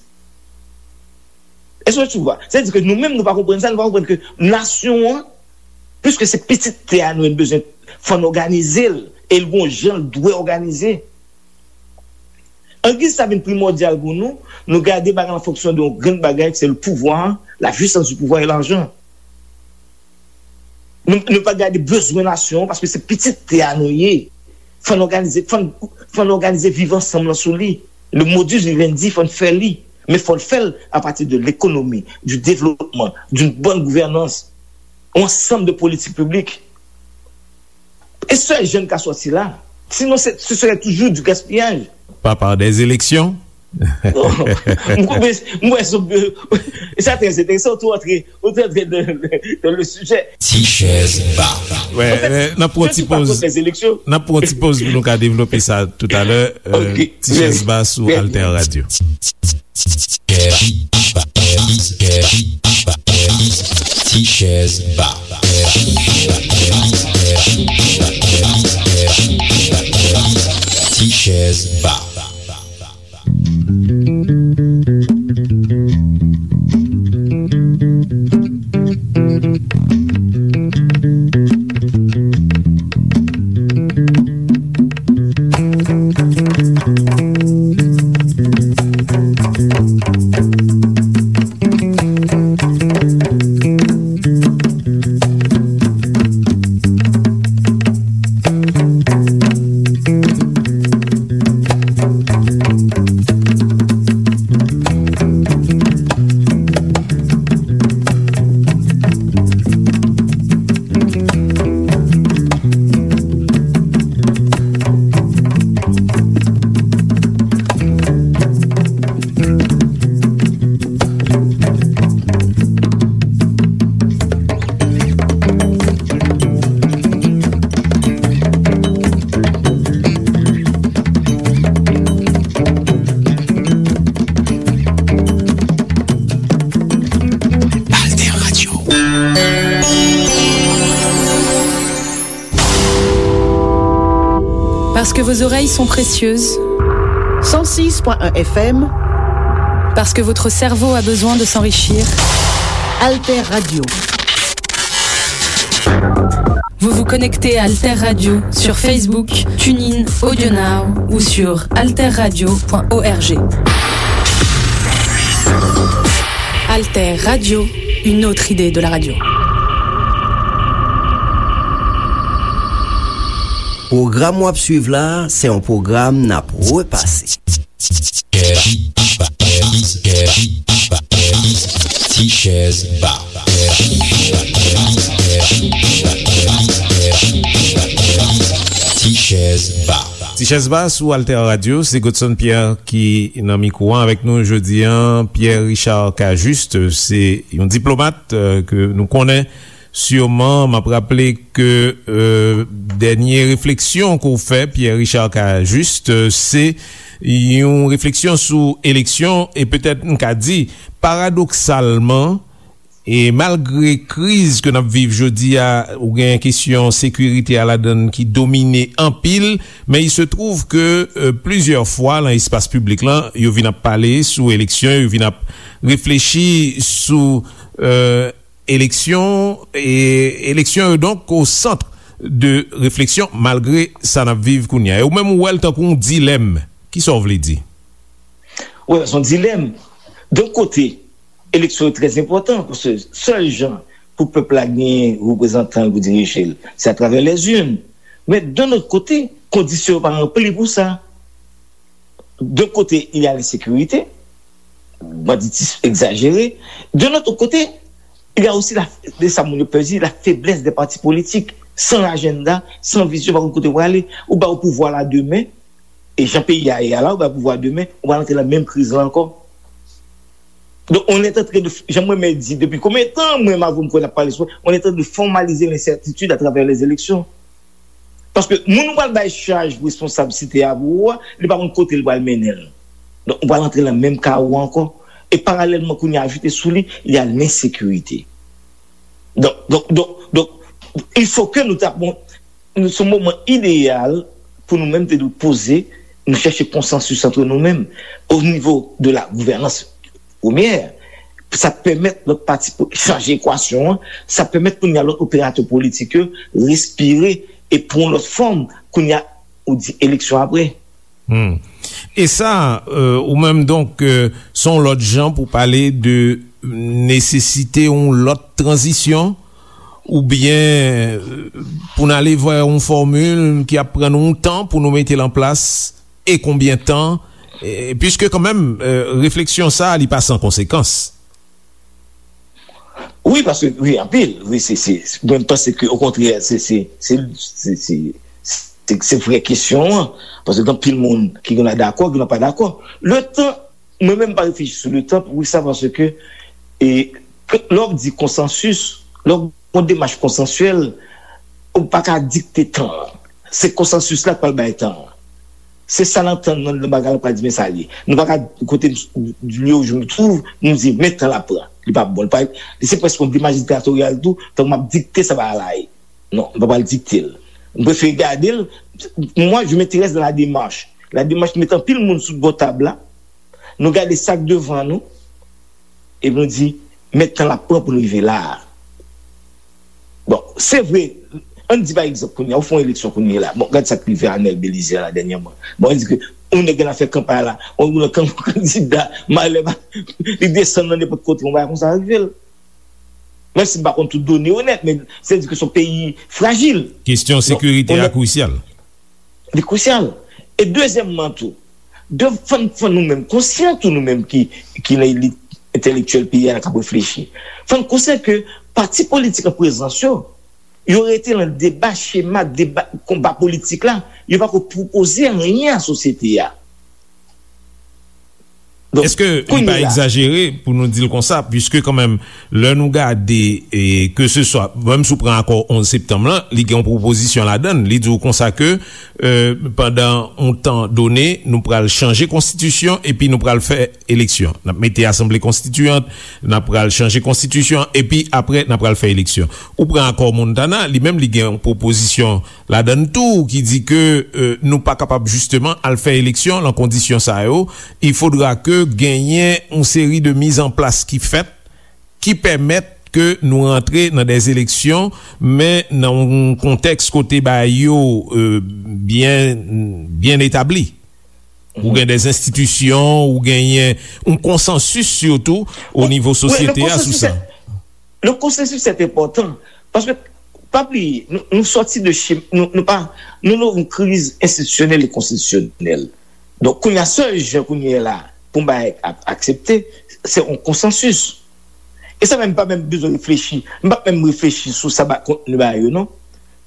Èske tu vois? Sa vle di ke nou menm, nou pa konprann sa, nou pa konprann ke nasyon an, piske se pitit tè a nou, nou bezwen, fò n òganize l, e l gon jan l dwe òganize. Angiz sa vin primòdyal pou nou, nou gade bagay an fonksyon de yon grenn bagay, se le pouvoir, la puissance du pouvoir et l'argent. Nou, nou pa gade bezwen nasyon an, paske se pitit tè a nou ye. Fò n òganize, fò n, fò n òganize viv ansanm lan sou li. Le modus vivendi, fò n fè li. Men fò n fè l apati de lekonomi, du développement, d'une bonne gouvernance, yon ansanm de politik piblik. E sèl jan n ka sòti la. Sinon, se, ce serait toujours du gaspillage. Pas par des élections. M kwè, m kwè, e sa trè enteresan, ou tou antre, ou tou antre dans, dans le sujet. Ti chèz ba. Wè, n ap pran ti poz. N ap pran ti poz pou nou ka devlope sa toutalè. Ti chèz ba sou Alter Radio. Ti chèz ba. Ti chèz ba. Vos oreilles sont précieuses. Cent six point un F M. Parce que votre cerveau a besoin de s'enrichir. Alter Radio. Vous vous connectez à Alter Radio sur Facebook, TuneIn, AudioNow ou sur alterradio point org. Alter Radio, une autre idée de la radio. Pwogram w ap swiv la, se yon pwogram n ap repase. Tichèz Ba. Tichèz Ba. Tichèz Ba sou Alter Radio, se Godson Pierre ki nan mikwo a avèk nou jodi a. Pierre Richard Cajuste, se yon diplomat, euh, ke nou konnen. Siman, m ap raple ke, euh, dènye refleksyon ke w fè, Pierre Richard Cajuste, euh, se yon refleksyon sou eleksyon, e petèt m ka di, paradoksalman, e malgre kriz ke n ap viv jodi a, ou gen kesyon sekirite a ladan l ki domine anpil, men il se trouve que, euh, plizyè fwa nan espas piblik lan, yo vin ap pale sou eleksyon, yo vin ap reflechi sou, euh, eleksyon, e eleksyon yo donk o sant de refleksyon malgre sa n ap viv kounye a. E ou menm ou wè l tankou yon dilèm. Kisa w vle di? Wi, se yon dilèm. Yon kote, eleksyon yo trè enpòtan, paske sèl jan pou pèp la genyen reprezantan l pou dirije l, se atravè lèzin. Men, yon lòt kote, kondisyon yo pa ranpli pou sa. D'un côté, il y a l'insécurité, banditisme exagéré. D'un autre côté, il y a aussi la, de sa moun yo pè di, la faiblesse des partis politiques, sans agenda, sans vision, pa konn kote w prale. Ou ba ou pouvwa la demen, e jan peyi a ye a la, ou ba pouvwa demen, ou pral antre nan menm kriz la ankò. Donc, on est en train de, jan mwen menm di, depi konbyen tan mwen m avè w m kwè n ap pale sou, on est en train de formaliser l'incertitude à travers les élections. Paske moun ou pral bay chaj responsabilite a pou ou a, li pa konn kote li pral mennen l. Donk, ou pral antre nan menm kawo ankò. E paralèlman, kounye a ajoute sou li, il y a l'insécurité. Donk, donk, donk, donk, il faut que nou ta, bon, nou, se yon moman ideyal pou nou menm te dwe poze, nou chèche konsansis antre nou menm, o nivo de la gouvènans premyè, sa pèmèt lòt pati pou chanje ekwasyon an, sa pèmèt kounye a lòt operatè politik yo respire e pran yon lòt fòm, kounye a ou di eleksyon apre. Hmm. E sa, euh, ou menm donk, euh, se yon lòt jan pou pale de nesesite yon lòt tranzisyon, oubyen, euh, pou n ale vè yon fòmil ki ap pran nou yon tan pou nou mete l an plas, e konbyen tan, e, piske kanmenm, euh, refleksyon sa a, li pa san konsekans. Wi, paske, wi, anpil. Wi, se, se, mwen, m panse ke, okontrè, se, se, se, se, se, se, se vrè kesyon an. Paske gen anpil moun ki gen dakò, ki gen pa dakò. Le tan, mwen menm, m pa reflechi sou le tan, poukisa? Paske, e, ke, lè w di konsansis, lè w gon demach konsansyèl, ou pa ka dikte tan an. Se konsansis la k pral bay tan an. Se sa n antann nan, nan bagay la, pa di men sa l ye. Nou pa ka kote m, lieu où je me trouve, nou di men tan l ap pran. Li pa bon. Li pa, li se prèske yon demach diktatoryal tou, tankou m ap dikte sa bagay la ye. Non, m pa pral dikte l. M prefere gade l. Moi, je m'intéresse dans la démarche. La démarche, met anpil moun sou bò tab la. Nou gade sa k devan nou, epi nou di, men tan l ap pran pou nou rive la a. Bon, se vre, ann di pa egzanp kounye a, ou fè yon eleksyon kounye a la. Bon, gad sa k rive Arnel Belizaire la dènyèman. Bon, ann di ke yon nèg gen afè kanpay la, yon, yon kan-, kandida, malè, li desann nan nenpòt kote, yon bagay konsa rive l. Menm si m pa konn tout done yo nèt, men se di ke se yon peyi frajil. Kesyon sekirite a krisyal. Li krisyal. E dezyèmman tou, de, fò n, fò nou menm konsyan tou, nou menm ki, ki nan elit entèlektyèl peyi a, k ap reflechi. Fò n konsyan ke pati politik an prezans yo, yo rete nan deba, chema, deba, konba politik la, yo pa ko pwopoze anyen a sosyete a. Èske li pa egzajere pou nou di l konsa, piske kanmenm, lè nou gade, e, ke se swa, menm si w pran akò onz septanm lan, li gen yon pwopozisyon ladan l, li di w konsa ke, e, pandan yon tan done, nou pral chanje konstitisyon epi nou pral fè eleksyon. N ap mete asanble konstitiyant, n ap pral chanje konstitisyon, epi apre, n ap pral fè eleksyon. Ou pran akò Montana, li menm, li gen yon pwopozisyon ladan l tou ki di ke, e, nou pa kapab jisteman al fè eleksyon lan kondisyon sa yo. Il faudra ke genyen yon seri de mizanplas ki fèt, ki pèmèt ke nou rantre nan dè eleksyon, men nan yon kontèks kote bagay yo, e, byen, byen etabli. Ou gen dè enstitisyon, ou genyen yon konsansis sitou o nivo sosyete a sou sa. Le konsansis se enpòtan, paske, pa bliye, nou, nou sòti de chim, nou, nou pa, nou nan yon kriz enstitisyonèl e konstitisyonèl. Donk, kounye a, sèl jan kounye a la pou bagay ap aksepte, se yon konsansis. E sa menm, pa menm bezwen reflechi. M p ap menm reflechi sou sa ba kontni bagay yo, non.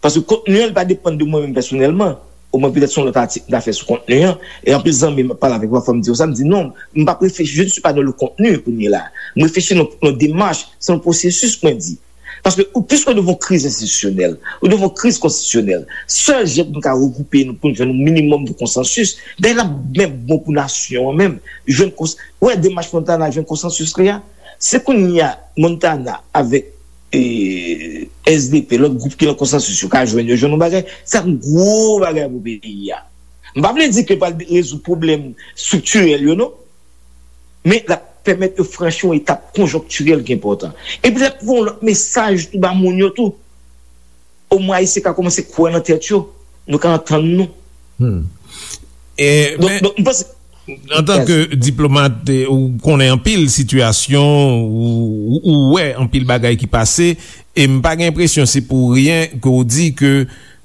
Paske kontni an, li pa depann de mwen menm pèsonèlman. Omwen, petèt se yon lòt atik m ta fè sou kontni an. E anpil zanmi m ap pale avèk mwen, fò m di yo sa, m di non, m p ap reflechi, je ne suis pas dans le contenu kounye la. M reflechi nan, nan demach, se yon pwosesis mwen di. Paske ou, piske nou devan yon kriz enstitisyonèl, nou devan yon kriz konstitisyonèl, sèl jan pou nou ka regwoupe nou, pou nou jwenn yon minimòm de konsansis, dayè l ap menm bon pou nasyon an menm, jwenn kons-, wè demach Montana jwenn konsansis li a. Se kounye a Montana avèk, e, S D P, lòt gwoup ki nan konsansis yo ka jwenn, yo jwenn yon bagay, se ap yon gwo bagay pou peyi a. M pa vle di ke l pral rezoud pwoblèm estriktirèl yo, non. Men l ap pèmèt yo franchi yon etap konjonktirèl ki enpòtan. Epi l ap voye yon lòt mesaj tou ba moun yo tou. Omwen Ayisyen ka kòmanse kwè nan tèt yo. Nou ka antann nou. Hmm. E, donk, men, donk, m panse, antan ke diplomat, e, ou konnen anpil sitiyasyon, ou, ou, ou wè anpil bagay ki pase, e m pa gen enpresyon se pou ryen ke w di ke,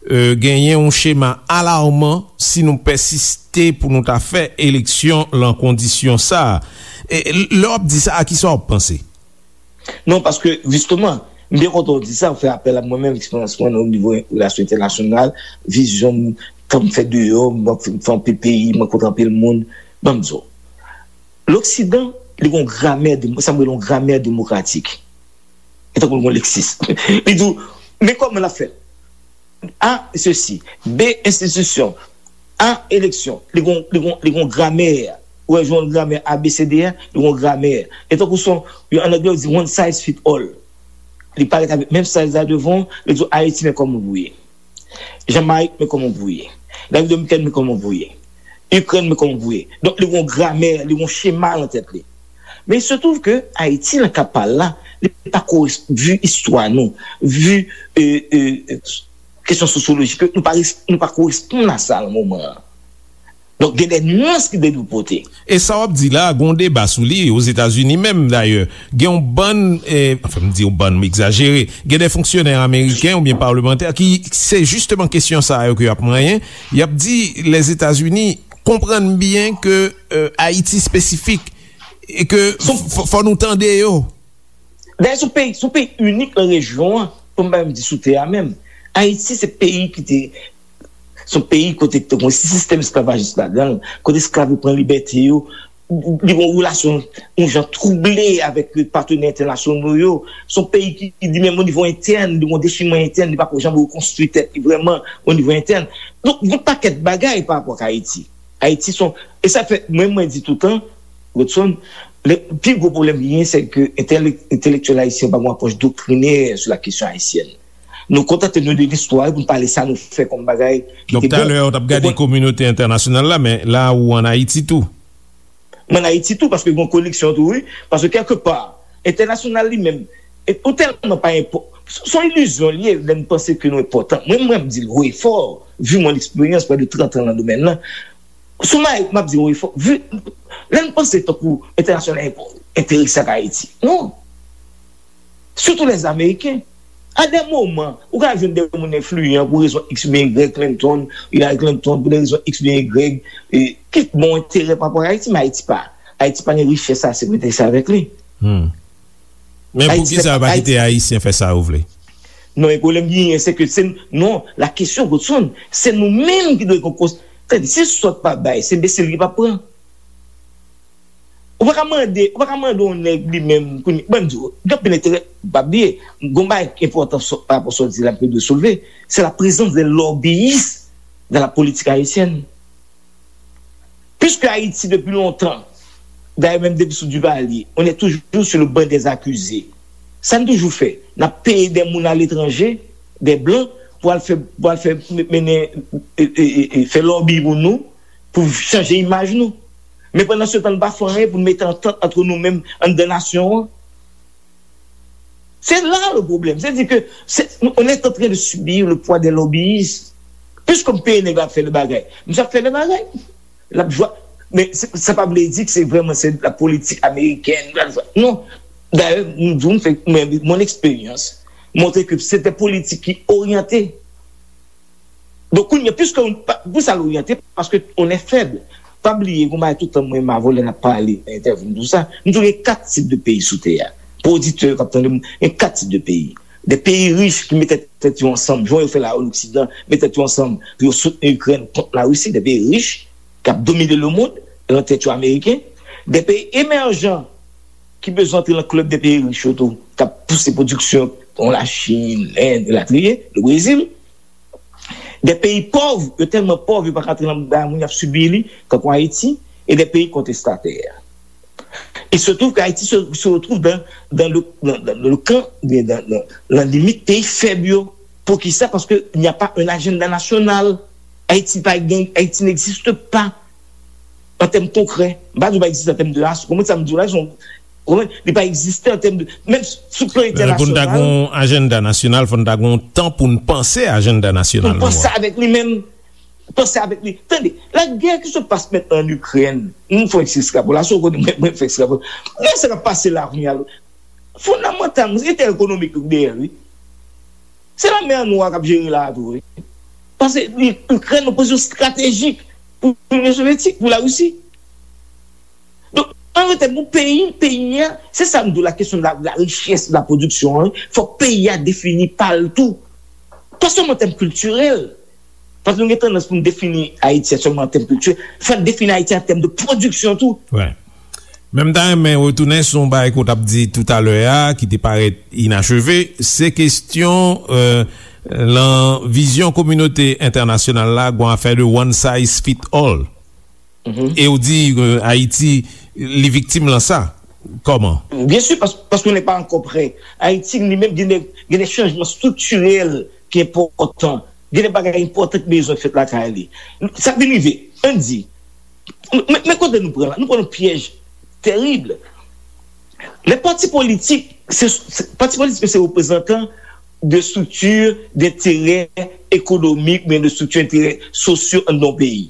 e, genyen yon chema alarman si nou pèsiste pou nou ta fè eleksyon lan kondisyon sa a. E, lè w ap di sa, a kisa w ap panse? Non, paske, jisteman, m byen kontan w di sa, w fè apèl a mwen menm, eksperyans mwen nan nivo relasyon entènasyonal, vizyon m, tan m fè deyò, m fè anpil peyi, m rankontre anpil moun. Ban m di w, Loksidan, li gen yon gramè, de, sa m rele yon gramè demokratik. E tankou l gen yon leksis. Li di w, men kòman l ap fèt. A, sesi. B, enstitisyon. A, eleksyon. Li gon, li gon, li gon gramè. Ou wè, jan gramè A B C D a, li gon gramè. E tankou son, yo, an anglè, yo di one size fit all. Li parèt avèk menm size la devan, li di w, Ayiti, men kòman pou ye. Jamayik, men kòman pou ye. Repiblik Dominikèn, men kòman pou ye. Ikrèn, men kòman pou ye. Donk, li gon gramè, li gon chema nan tèt li. Men il se trouve que Ayiti, nan ka pa l la, li pa koresp-, vi istwa nou, vi, e, e, e, kesyon sosyolojik, nou pa res-, nou pa koresponn a sa nan moman an. Donk, gen de nyans ki dwe pote. E sa w ap di la, gen yon deba sou li, Ozetazini menm, dayè. Gen yon bann, e, anfen, m di yon bann, m egzajere, gen de fonksyonè ameriken oubyen palmantè ki, se jisteman kesyon sa yo ke y ap manyen. Y ap di, Lèzetazini konprann byen ke, e, Ayiti espesifik, e ke f-, fò nou tande yo. Dayè, se yon peyi, se yon peyi inik nan rejyon an, pou m pa menm di sou tè a menm. Ayiti, se peyi ki te, se yon peyi kote ki te gen yon sistèm esklavajis ladan l, kote esklav yo pran libète yo, li gen yon relasyon, yon jan twouble avèk patenè entènasyonal yo. Se yon peyi ki, ki li menm, o nivo entèn, li gen yon dechimè entèn, li pa ko janm rekonstwi tèt li vrèman, o nivo entèn. Donk, gen yon pakèt bagay pa rapò ak Ayiti. Ayiti se yon, e sa fè, mwen, mwen di toutan, Rodson, le, pi gwo pwoblèm ki genyen, se ke entèlek-, entèlektyèl ayisyen pa gen yon apwòch doktrinè sou la kesyon ayisyèn. Nou kontante nou de listwa pou nou pale sa nou fè kòm bagay ki te bon. Donk, talè, w t ap gade kominote entènasyonal la, men la, ou ann Ayiti tou. M ann Ayiti tou, paske gen yon koneksyon tou, wi. Paske, kèlkepa, entènasyonal li menm, e, ou tèlman pa enpò-, s-, s on ilizyon li ye, lè n panse ke nou enpòtan. Mwen, mwen, m di l haut et fort, vu mon expérience, près de trente ans nan domèn nan, sou Mayik, m ap di haut et fort, vu, lè n panse tankou entènasyonal enpò-, enterese ak Ayiti. Non. Sitou lèzameriken. A de moman, ou ka jwenn de moun enfliyan pou rezon X oubyen Y, Clinton, Hillary Clinton, pou de rezon X oubyen Y, e, ki gen yon enterè pa rapò ak Ayiti, men Ayiti pa, Ayiti pa gen richès ase pou enterese avèk li. Hmm. Men poukisa yo pa kite Ayisyen fè sa yo vle? Non, e pwoblèm ki genyen, se ke se, non, la kesyon, Godson, se nou menm ki dwe gen kons-, tande, si sòt pa bay, se enbesil ki p ap pran. Ou pa ka mande, ou pa ka mande yon nèg li menm, kounye, ban m di w, gen anpil enterè, pa bliye, gon bagay ki enpòtan sò- pa rapò sa w di la, m dwe soulve, c'est la présence des lobbyistes dans la politique haïtienne. Puisque Haïti, depuis longtemps, d'ailleurs, même depuis sous Duvalier, on est toujours sur le banc des accusés. Sa n toujou fè, n ap peye de moun aletranje, de blan, pou al fè, pou al fè mennen, e, e, e, e, fè lòbi pou nou, pou chanje imaj nou. Men pandan se tan, n pa fè anyen pou n mete antant ant nou menm anndan nasyon an. C'est là le problème. C'est-à-dire que c'est, on est en train de subir le poids des lobbyistes. Puisque m peye nèg la ap fè le bagay, misye ap fè le bagay. L ap jwa. Men se- sa pa vle di ke se vrèman se la politik amerikèn. Non. Dayè, m di w, m fè, men mon eksperyans montre ke se te politik ki oryante. Donk, kounye a, puisque on- pa- pou sa l oryante, paske on est faible. Pa bliye, gon bagay tout tan mwen, ma volè n ap pale nan entèvyou m, tou sa. M di w gen kat tip de peyi sou tè a. Pou oditè k ap tande m, gen kat tip de peyi. De peyi rich ki mete tèt yo ansanm, jan yo fè la o Loksidan, mete tèt yo ansanm pou yo soutni Ikrèn kont Larisi, de peyi rich k ap domine lemonn, nan tèt yo ameriken, de peyi emèjan ki bezwen antre nan klèb de peyi rich yo tou, k ap pouse pwodiksyon, kon Lachin, Lend, elatriye, le Brezil, de peyi pòv, yo tèlman pòv, yo pa ka antre nan bagay moun y ap sibi li, tankou Ayiti, e de peyi kontestatè. Il se trouve que Haïti se, se retrouve dans, dans le, dans, dans le camp, dans, dans, dans la limite pays faible. Yo. Poukisa? Parce qu'il n'y a pas un agenda national. Haïti, pa gen, Haïti n'existe pas en termes concrets. M pa di pa egziste an tèm de ras. Konprann sa m di w la? Son, konprann? Li pa egziste an tèm de, menm sou plan entènasyonal. Pou n ta gen yon ajanda nasyonal, fò n ta gen yon tan pou n panse ajanda nasyonal nou an. Pou n panse avèk li menm. Panse avèk li. Tande, la guerre qui se passe maintenant en Ukraine, nou fè yon ti estrapolasyon, kote mwen, mwen fè estrapolasyon. Men sa k ap pase la kounye a, fondamantalman, se entèrè ekonomik yo ki dèyè l, wi. Se lanmè Nwè a k ap jere la a tou, wi. Paske Ikrèn nan pozisyon estratejik pou Linyon Sovyetik, pou Larisi. Donk, an reyalite, pou peyi, peyi a, se sa m di w, la kesyon de la, de la richès, de la pwodiksyon an, fòk peyi a defini pa l tou. Pa sèlman an tèm kiltirèl. Paske nou gen tandans pou n defini Ayiti a sèlman an tèm kiltirèl. Fò n defini Ayiti an tèm de pwodiksyon tou. Wi. Men m ta renmen retounen sou yon bagay ke w t ap di toutalè a, ki te parèt inacheve, se kesyon, euh, lan vizyon kominote entènasyonal la, gon afè de one size fit all. E w di, euh, Ayiti, li viktim lan sa. Kòman? Byen si, pas- paske nou pa ankò prè. Ayiti, li menm, gen de, gen de chanjman striktirèl ki enpòtan. Gen de bagay enpòtan ki bezwen fèt lakay li. Sa vin rive, ann di, men, men kote nou pran la? Nou pran yon pyèj tèrib. Lè pati politik, se, se, pati politik se reprezantan de strikti d'enterè ekonomik, men de strikti enterè sosyo anndan yon peyi.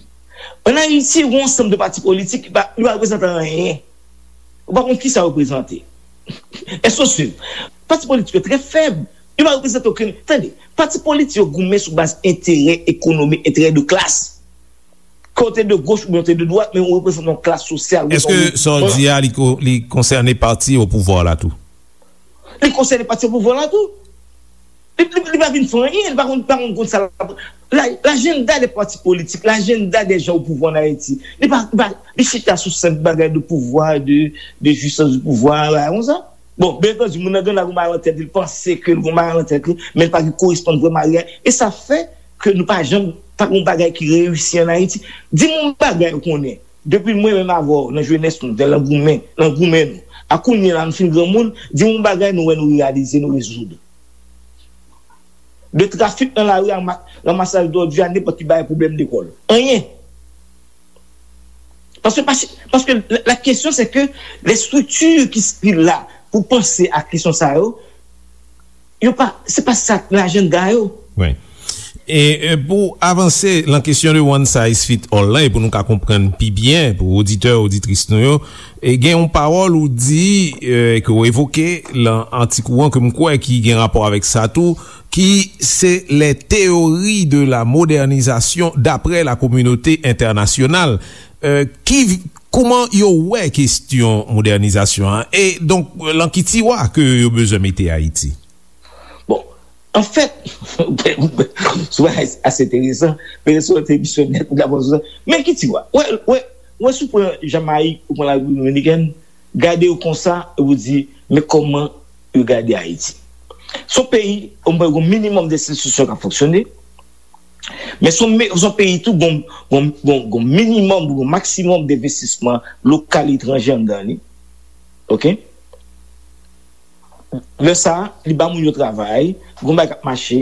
Ann Ayiti, gen yon ansanm de pati politik ki pa, li pa reprezante anyen. Ou pa konn kisa yo reprezante. Èske w swiv? Pati politik yo trè fèb. Yo pa reprezante okenn. Tande, pati politik yo goumen sou baz enterè ekonomik, enterè de klas. Ke w te de goch oubyen w te de dwat, men ou reprezante yon klas sosyal. Èske sa w di a, li ko- li konsène pati o pouvwa la tou? Li konsène pati o pouvwa la tou. Li, li, li pa vin fè anyen, li pa konn, pa konn, konn sa l ap. La, lajanda de pati politik, lajanda de jan o pouvwa an Ayiti, li pa, li pa, li chita sou senp bagay de pouvwa, de, de jwisans de pouvwa, bagay konsa. Bon, byen antandi, moun nan gen gon bagay nan tèt li, li panse ke l gon bagay nan tèt li, men li pa gen koresponn vrèman a reyalite. E sa fè ke nou pa janm, pa gon bagay ki reyisi an Ayiti. Di m yon bagay ou konnen, depi mwen menm avè w, nan jenès nou, nan goumen, nan goumen nou, a kounye a la nou fin granmoun, di m yon bagay nou wè nou reyalize, nou rezoud. De trafik nan lari a, ma- ranmasaj dòdi a, nenpòt ki bagay pwoblèm lekòl. Anyen. Paske, paske, paske la, la kesyon se ke les structures ki, ki la pou panse a kesyon sa yo, yo pa, se pa sa k nan ajanda yo. Wi. E, e pou avanse lan kesyon de one size fit all lan, e pou nou ka konprann pi byen, pou oditè, oditris nou yo, e gen yon pawòl ou di, e, ke w evoke lan atik ou an, ke m kwè ki gen rapò avèk sa tou, ki se les théories de la modernisation d'après la communauté internationale. Euh, ki, kouman yo wè kesyon modènizasyon an? E donk, lan ki tiwa ke yo bezwen mete Ayiti? Bon, anfèt, se bagay ase enteresan, men se yon emisyon nèt, ou dakò sou sa. Men ki tiwa? Wè, wè, Ou wè, si w pran Jamayik, ou pran Larepiblik Dominikèn, gade yo konsa, epi w di, men kòman yo gade Ayiti. Se yon peyi, ou gen yon minimòm de enstitisyon k ap fonksyone, men se yon, se yon peyi tou, gon, gon, gon, gon minimòm, gon maksimòm denvestisman lokal, etranje anndan li. Oke? Lè sa a, li ba moun yo travay, gon bagay k ap mache,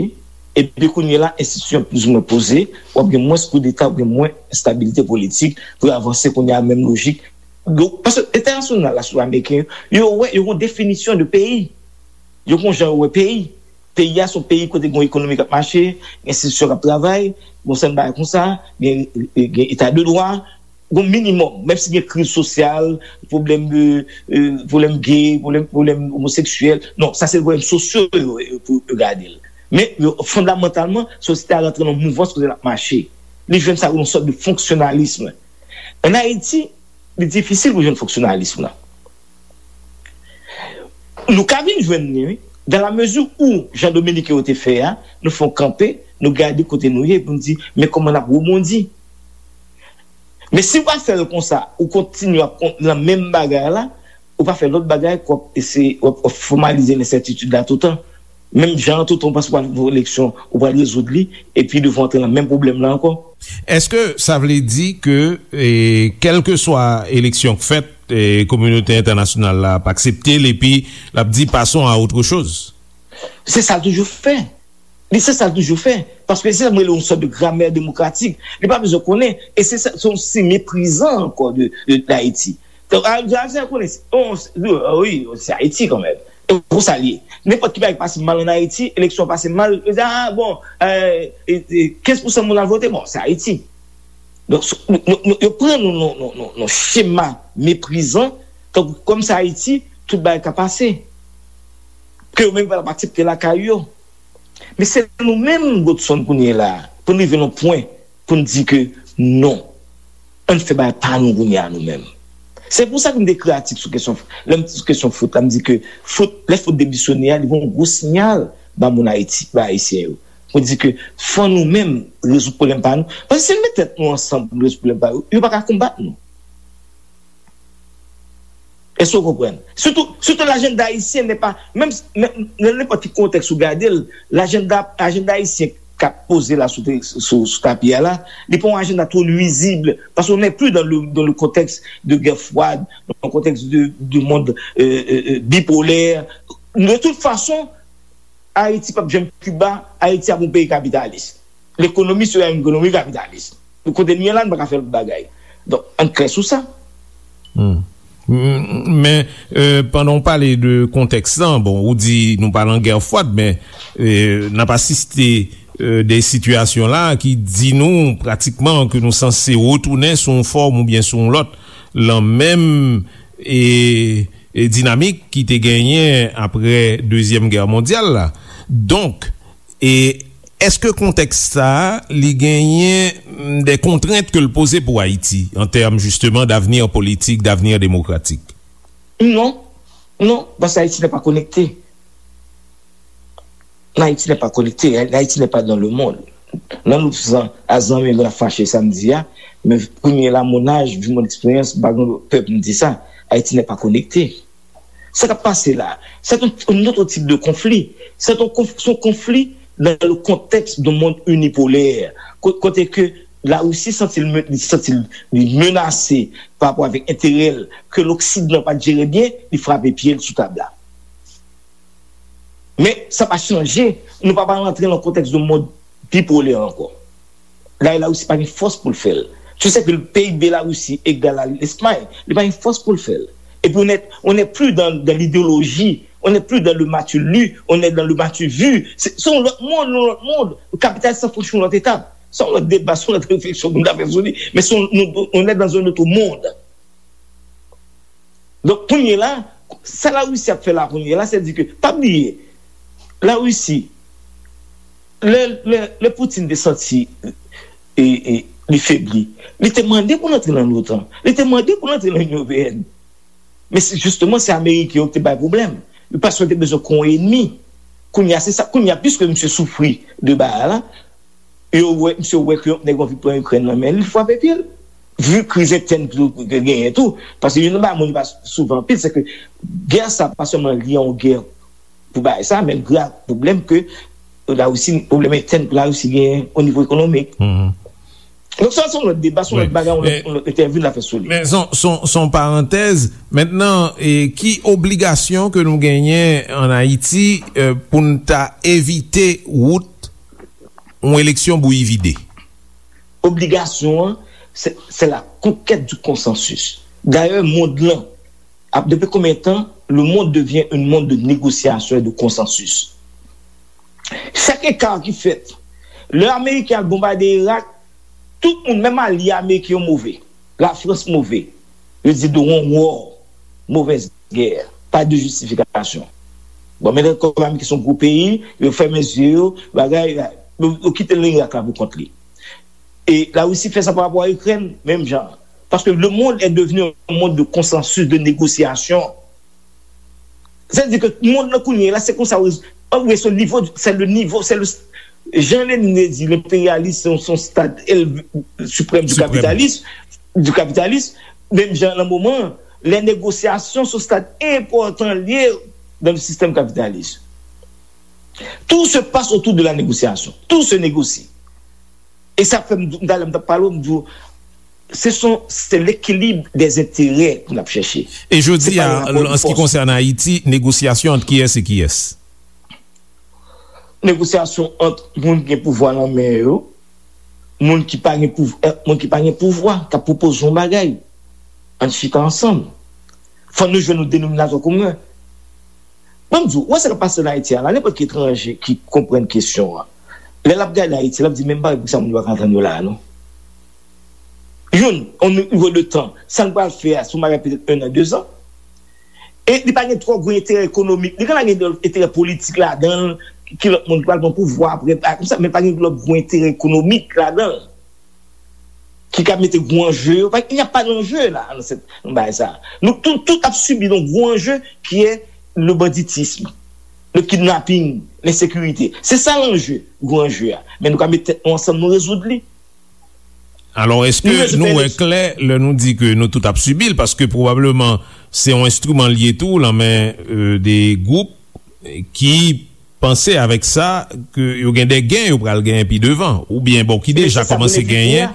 epi kounye a la, enstitisyon plizoumwen poze, w ap gen mwens koudeta, w ap gen mwens estabilite politik pou yo avanse kounye a, menm lojik. Donk, paske entènasyonal la, sou ameriken yo, yo wè, yo gen yon definisyon de peyi. Yo gen yon jan yo wè peyi. Peyi a se yon peyi kote gen yon ekonomi k ap mache, gen enstitisyon k ap travay, gen yon sèten bagay konsa, gen, gen eta de dwa, gen yon minimòm, menm si gen kriz sosyal, pwoblèm de, euh, pwoblèm gay, pwoblèm, pwoblèm omoseksyèl. Non, sa se pwoblèm sosyo yo, yo, pou yo gade l. Men, yo, fondamantalman, sosyete a rantre nan yon mouvans kote l ap mache. Li jwenn sa yon sòt de fonksyonalism. Ann Ayiti, li difisil pou jwenn fonksyonalism lan. Nou ka vin jwenn li, wi. Dan la mezi ou, jan Dominiken yo te fè a, nou fè yon kanpe, nou gade kote nou ye, pou nou di, men kòman n ap rebondi. Men si w pa fè l konsa, ou kontinye ap kon- nan menm bagay la, ou pa fè lòt bagay, k w ap eseye, w ap, w ap fòmalize lensètitid la toutan. Menm jan an, toutan w panse w pral voye eleksyon, ou pral rezoud li, epi devan w antre nan menm pwoblèm la ankò. Èske sa vle di ke, e, kèlkeswa eleksyon k fèt, e, kominote entènasyonal la ap aksepte l, epi l ap di, passons à autre chose? Se sa l toujou fè. Li se sa l toujou fè. Paske se sa m rele yon sòt de gramè demokratik. Li pa bezwen konnen. E se sa, se yon siy meprizan ankò de, de, de Ayiti. Donk, a, a, sa konnen, se, oh, se, oh, wi, se Ayiti kanmenm. E konsa l ye. Nenpòt ki bagay pase mal ann Ayiti, eleksyon pase mal, yo di, ah, bon, euh, e, e, kenz pousan moun al vote, bon, se Ayiti. Donk, s- nou, nou, nou, yo pran nou nan, nan, nan, nan chema meprizan, tankou kòm se Ayiti, tout bagay ka pase. Ke yo menm pa t ap aksepte lakay yo. Men se nou menm, Godson, kounye a la, pou n rive nan pwen, pou n di ke non, ann fè bagay pa nou kounye a nou menm. Se pou sa ke m te ekri atik sou kesyon, lè m sou kesyon fout la, m di ke fout, lè fout demisyone a, li voye yon gwo siyal ba moun Ayiti, ba Ayisyen yo. Pou di ke fò nou menm rezoud pwoblèm pa nou. Paske si n met tèt nou ansanm pou n rezoud pwoblèm pa yo, yo pa ka konbat nou. Èske w konprann? Sitou, sitou lajanda ayisyen nè pa, menm, menm nan nenpòt ki kontèks ou gade l, lajanda, ajanda ayisyen k ap poze la sou, sou, sou tapi a la, li pa yon ajanda twò nwizib, paske on n'est plus dans le, dans le contexte de guerre froide, dans un contexte de, de monde euh, euh, euh, bipolaire. De toute façon, Ayiti p ap janm Kiba, Ayiti ap yon peyi kapitalis. Lekonomi se yon ekonomi kapitalis. Kote n ye la, n pa ka fè lòt bagay. Donk, ann klè sou sa. Hmm. M- Men, euh, pandan w pale de kontèks lan, bon, ou di nou pa nan gè fwad, men euh, n ap asiste euh, de sitiyasyon la ki di nou pratikman ke nou sanse retounen sou yon fòm oubyen sou yon lòt lan menm e, e dinamik ki te genyen apre Dezyèm Gè Mondyal la. Donk, e èske kontèks sa a, li genyen mm, de kontrent ke l poze pou Ayiti, an tèm jisteman davni politik, davni demokratik? Non, non, paske Ayiti n'est pas connecté. L'Haïti n'est pas connecté, l'Haïti n'est pas dans le monde. Nan nou san a zanmi nou ap fache samdi a, men premye la mon âge, vu mon expérience, m pa gen pè pou m di sa, Ayiti n'est pas connecté. Sa k ap pase la, c'est un, un autre type de conflit. C'est un, conf- c'est un conflit dans le contexte d'un monde unipolaire. Ko- Kote ke Larisi santi l men- li santi l li menase pa rapò avèk enterè l ke Loksidan pa t jere byen, li frape pye l sou tab la. Men sa pa chanje, nou pa pral rantre nan kontèks de mond bipolè ankò. La, Larisi pa gen fòs pou l fè l. Tu sais que le P I B Larisi egal a Lespay, li pa gen fòs pou l fè l. Epi on n'est, on n'est plus dans, dans l'idéologie, on n'est plus dans le m'as-tu lu, on est dans le m'as-tu vu. Se se yon lòt mond, yon lòt mond. Kapitalis sa franchi yon lòt etap. Se yon lòt deba, se yon lòt refleksyon pou n ta fè sou li. Men se yon, nou, on est dans un autre monde. Donk, kounye la, sa Larisi ap fè la kounye la, se di ke, pa bliye, Larisi, lè, lè, lè Putin te santi e, e, li febli, li te mande pou l antre nan l'OTAN, li te mande pou l antre nan Inyon Ewopeyèn. Men se, jisteman, se Ameriken yo ki te bay pwoblèm. Paske yo te bezwen kon enmi. Kounye a, se sa. Kounye a, piske misye soufri de bagay la, yo wè, misye wè ke nèg yo anvi pran Ikrèn nan men li, li frape pye l. Vu kriz entèn ki genyen tou, paske youn nan bagay moun yo pa souvan anpil, se ke gè sa pa sèlman li yon gè pou bagay sa, men gra pwoblèm ke Larisi, pwoblèm entèn ke Larisi genyen o nivo ekonomik. Donk sa se yon lòt deba, se yon lòt bagay, yon lòt entèvyou n a fè sou li. Men se yon parantèz. Mentnan, ki obligasyon ke nou genyen ann Ayiti pou n ta evite wout yon eleksyon bouyi vide? Obligasyon an, se la conquête du consensus. Dayè, mond lan ap, depi konbyen tan le monde devient un monde de négociation et de consensus? Chak eka ki fèt, lè Ameriken al bonbade Irak, tout moun, menm alye Ameriken yo move. Lafrans move. Yo di de yon war, mauvaise guerre, pas de justification. Bon, men kòm Ameriken se yon gwo peyi, yo fèmen zye yo, bagay, yo kite l nan Irak la pou kont li. E Larisi fè sa pa rapò a Ikrèn, menm jan. Paske le monde est devenu un monde de consensus, de négociation. Sa vle di ke mond lan kounye a la, se konsa, ann, se nivo, se le nivo, se le, jan Lenin te di, lenperyalis se yon, se yon stad suprême du capitalisme, du capitalisme, menm jan nan moman, lè negosyasyon se yon stad enpòtan li ye dans le système capitaliste. Tout se passe autour de la négociation. Tout se négocie. E sa fè m, talè m t ap pale w, m di w, se son, se l'équilibre des intérêts pou n ap chèche. E jodi a, an se ki konsène Ayiti, negosyasyon ant kiyès e kiyès? Negosyasyon ant moun ki gen pouvwa nan men yo, moun ki pa gen pouvwa, moun ki pa gen pouvwa, k ap pwopoze yon bagay. Ann chita ansanm. Fò nou jwenn yon denominatè komen. Ban m di w, ou wè sa k ap pase ann Ayiti a la, nenpòt ki etranje ki konprann kesyon an, lè l ap gade Ayiti, l ap di, men m pa wè poukisa moun yo pa ka antann yo la a non. Youn, yon nivo de tan, sa n pral fè a, se yon bagay petèt en an, de zan. E li pa gen twò gwo enterè ekonomik, li ka gen enterè politik ladan l, ki lòt moun ki pral pran pouvwa apre, konsa, men pa gen lòt gwo enterè ekonomik ladan l. Ki ka mete gwo anje yo. Il n'y a pas d'enjeu la nan bagay sa. Nou tout, tout ap sibi yon gwo anje ki e le banditisme, le kidnapping, lensekirite. Se sa lanje, gwo anje a. Men nou ka met tèt nou ansanm, nou rezoud li. Alò, èske nou wè klè lè nou di ke nou tout ap sibi l? Paske pwobableman se yon enstriman l ye tou nan men de gwoup ki panse avèk sa ke yo gen de gen yo pral genyen pi devan, oubyen bon, ki deja kòmanse genyen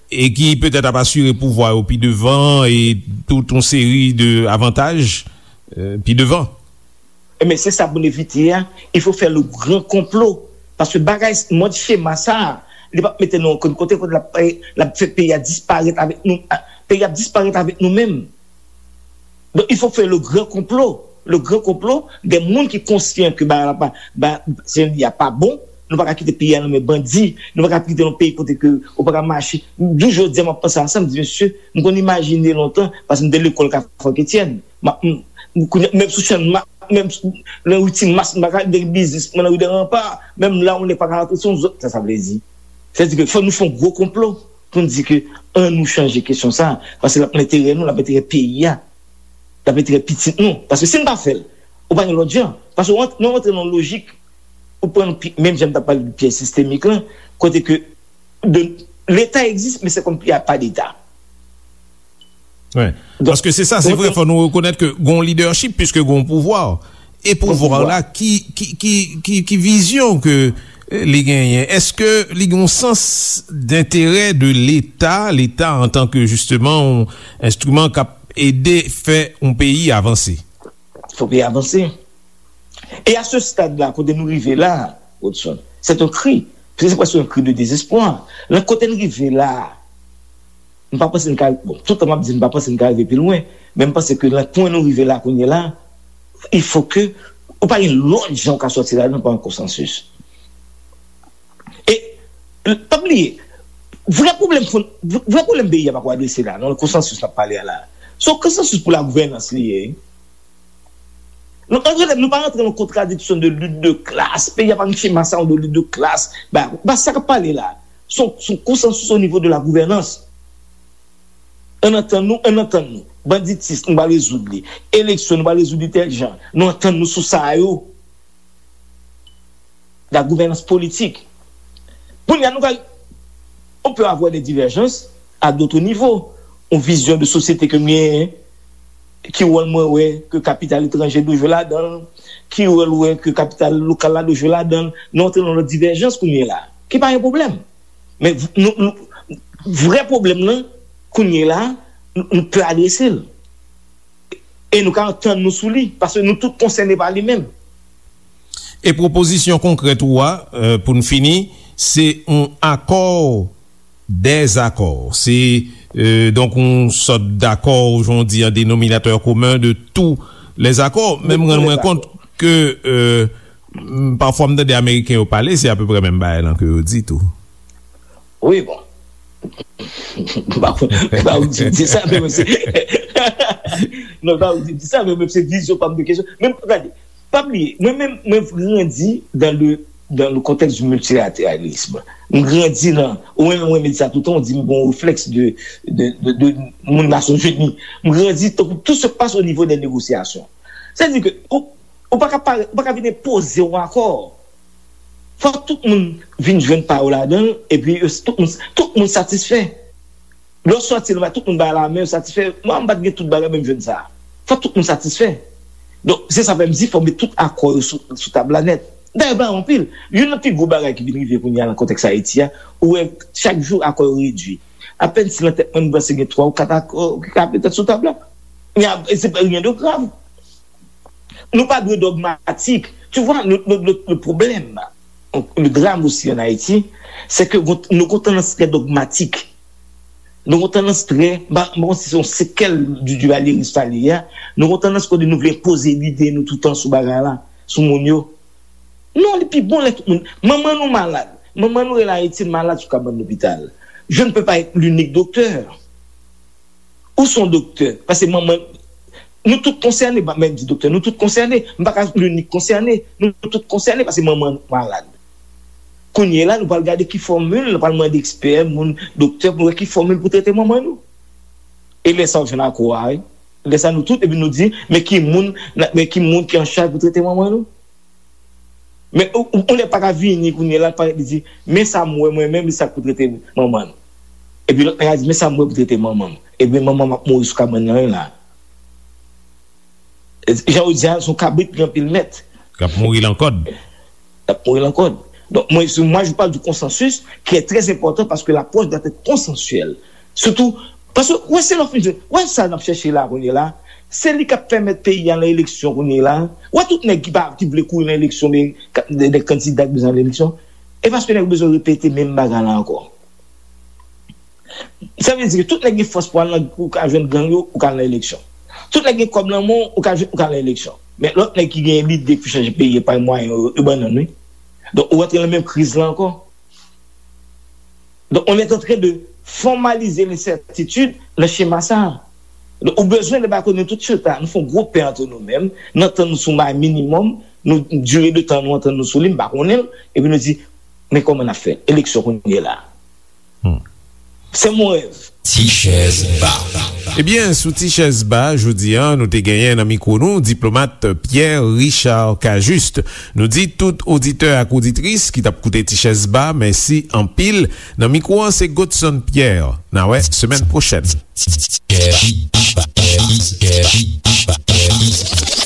e ki petèt ap asire pouvwa yo pi devan e tout yon seri de avantaj pi devan. Ebyen, se sa pou n evite a. Il faut faire le grand complot. Paske bagay, mòd chema sa a, li p ap mete nou okenn kote, kote l ap, l ap fè peyi a disparèt avèk nou. Peyi a ap disparèt avèk nou menm. Donk, il faut faire le grand complot. Le grand complot, de moun ki konsyan ke bagay la pa, ba, se, y a pa bon, nou pa ka kite peyi a nan men bandi, nou pa ka kite yon peyi kote ke ou pa ka mache. Jou jodi a, m ap panse a sa, m di, mesye, m konn imajine lontan, paske m te lekòl Kafou Etienne. M ap, m, kounye a, menm sou Channmas, menm sou, nan ri Timas, m pa ka de biznis mwen nan ri de Ranpa, menm la, yon nèg pa ka rantre, se yon zòt, sa, sa vle di. Sa vle di ke fò nou fè yon gwo konplo pou n di ke ann nou chanje kesyon sa, paske l ap nan enterè nou, l ap enterè peyi a, l ap enterè pitit nou. Paske si n pa fè l, ou pa gen lòt jan. Paske w ant-, nou rantre nan yon lojik, ou pran pi-, menm jan m t ap pale de pyès sistemik lan, kote ke de, Leta egziste, men se kòm y a pas d'État. Wi. Donk, paske se sa, se vre, fò nou rekonèt ke gon lidèchip, piske gon pouvwa. E pouvwa la, ki, ki, ki, ki, ki vizyon ke, eh, li genyen? Èske li gon sans denterè de Leta, Leta antanke, jisteman, yon enstriman k ap ede fè yon peyi avanse? Fò peyi avanse. E a se stad la, kote nou rive la, Rodson, c'est un cri. Se prèske yon kri de dezespwa. Nan kote n rive la, m pa panse n ka, bon, tout tan m ap di m pa panse n ka rive pi lwen, men m panse ke nan pwen nou rive la kounye la, il faut que, ou pa gen lòt jan ou ka sòti ladan pa yon konsansis. E, pa bliye, vrè pwoblèm fon-, vrè pwoblèm peyi a pa ko adrese la, nan konsansis n ap pale a la. Se yon konsansis pou lagouvènans li ye. Nou, ann rele, nou pa rantre nan kontradiksyon de lit de klas. Peyi a pa gen chema sa yo de lit de klas. Ba, ba sa k ap pale la. Se yon, se yon konsansis o nivo de la gouvènans. Ann antann nou, ann antann nou. Banditis, nou pral rezoud li. Eleksyon, nou pral rezoud li tèl jan. Nou antann nou sou sa yo. La gouvènans politik. Kounye a, nou ka, on peut avoir des divergences, à d'autres niveaux. Yon vizyon de sosyete ke m genyen, ki wòl mwen wè ke kapital etranje dwe jwe ladan l, ki wòl wè ke kapital lokal la dwe jwe ladan l. Nou antre nan lòt divèjans kounye la, ki pa yon pwoblèm. Men v- nou, nou, vrè pwoblèm nan, kounye la, nou, nou pè adrese l. E nou ka antann nou sou li, paske nou tout konsène pa li menm. E pwopozisyon konkrèt ou a, euh, pou n fini, se yon akò dèzakò. Se, euh, donk, yon sòt dakò, jan w di, an denominatè komen de tous les accords. Men m rann mwen kont ke, euh, m- pafwa m tande Ameriken yo pale, se apeprè menm bagay lan ke yo di tou. Wi, bon. M pa konn, m pa konn si m di sa, men mwen se. Non, m pa konn si m di sa, men mwen se vizyon pa m de kesyon. Men gade, pa bliye, mwen menm, mwen grandi dans le, dans le contexte du multilatéralisme. M grandi nan, ou menm, mwen di sa toutan, ou di m gon reflèks de, de, de, de moun Nasyonzini. M grandi, tout se passe au niveau des négociations. Sa di ke, ou, ou pa ka pare, ou pa ka vin enpoze yon akò. Fòk tout moun vin jwenn pa yo ladan l, epi yo, tout moun, tout moun satisfè. Lè w sòti la, tout moun bay la men, yo satisfè. Mwen, m pa t gen tout bagay, men m jwenn sa. Fòk tout moun satisfè. Donk, se sa fè m di, fòk met tout akò yo sou, sou tab la nèt. Dayè, bagay anpil. Youn nan pi gwo bagay ki vin rive kounye a nan kontèks Ayiti a, ou wè, chak jou akò yo redui. Apèn si nan tèt mwen, m panse gen twa ou kat akò ki ka petèt sou tab la. Men ap- se pa rien de grave. Nou pa dwe dogmatik. Tu vois, le, le, le, le problème, le drame aussi en Haïti, c'est que nou gon tandans trè dogmatik. Nou gon tandans trè, m pa konn si se yon sekèl du duvalyeris sa li ye a, nou gon tandans kote nou vle enpoze lide nou toutan sou bagay la, sou moun yo. Non, li pi bon lè tout moun, manman nou malad, manman nou rele Ayiti malad sou kabann lopital. Je ne peux pas être l'unique docteur. Ou se yon doktè, paske manman, nou tout konsène, m pa menm di doktè, nou tout konsène, m pa ka l'unique konsène, nou tout konsène paske manman nou malad. Kounye la, nou pral gade ki fòmil, nou pral mande ekspè, moun, doktè, pou nou wè ki fòmil pou trete manman nou. E lè sa, w jwenn akò a, wi. Lè sa, nou tout, epi nou di, men ki moun, men ki moun ki an chaj pou trete manman nou. Men ou, ou, ou lè pa ka vini kounye la, pa li di, men sa m wè mwen menm, li sa k pou trete manman l. Epi lòt nèg la di, men sa m wè pou trete manman m. Epi manman m ap mouri sou kabann nan la. Jan ou di a, se yon kabrit ki gen anpil mèt. K ap mouri lan kòd. K ap mouri lan kòd. Donk, mwen, se, moi, je parle du consensus qui est très important parce que l'approche doit être consensuelle. Surtout, paske, wè, se lè w fin jwenn, wè sa n ap chèche la kounye la, se li k ap pèmèt peyi a nan eleksyon kounye la. Wè tout nèg ki pa, ki vle kouri nan eleksyon, men ka- de, de kandida ki bezwen al eleksyon. E paske nèg yo bezwen repete menm bagay la ankò. Sa vle di ke tout nèg gen fòs pou al nan, ou ka jwenn gang yo, ou ka al nan eleksyon. Tout nèg gen kòb nan men w, ou ka jwenn, ou ka al nan eleksyon. Men lòt nèg ki gen lide pou chanje peyi a pa mwayen yo, yo ban nan, wi. Donk, ou rantre nan menm kriz la ankò. Donk, on est en train de formaliser l'incertitude nan chema sa a. Donk, ou bezwen de ba kote nou tout chita, nou fè yon gwo pè antre nou menm, nou antann nou sou bagay minimòm, nou dire de tan nou antann nou sou li, m pa konnen l, epi nou di, men kòman n ap fè? Eleksyon kounye la. Se mon rèv. Ti chèz ba. Ebyen, sou Ti chèz ba, jodi a, nou te genyen nan mikwo nou, diplomat Pierre Richard Cajuste. Nou di tout oditè ak oditris ki t ap koute Ti chèz ba, mèsi anpil. Nan mikwo an, se Godson Pierre. N a wè semèn pwochèn.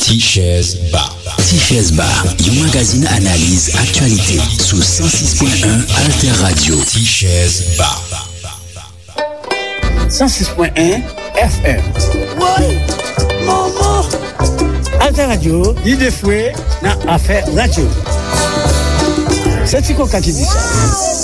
Ti chèz ba. Ti chèz ba, yon magazin analiz aktyalite sou san sis pwen en Alter Radio. Ti chèz ba. San sis pwen en F M. Woy! Manman! Alter Radio, lide fwe nan afè radyo. Se Ti Koka ki di sa.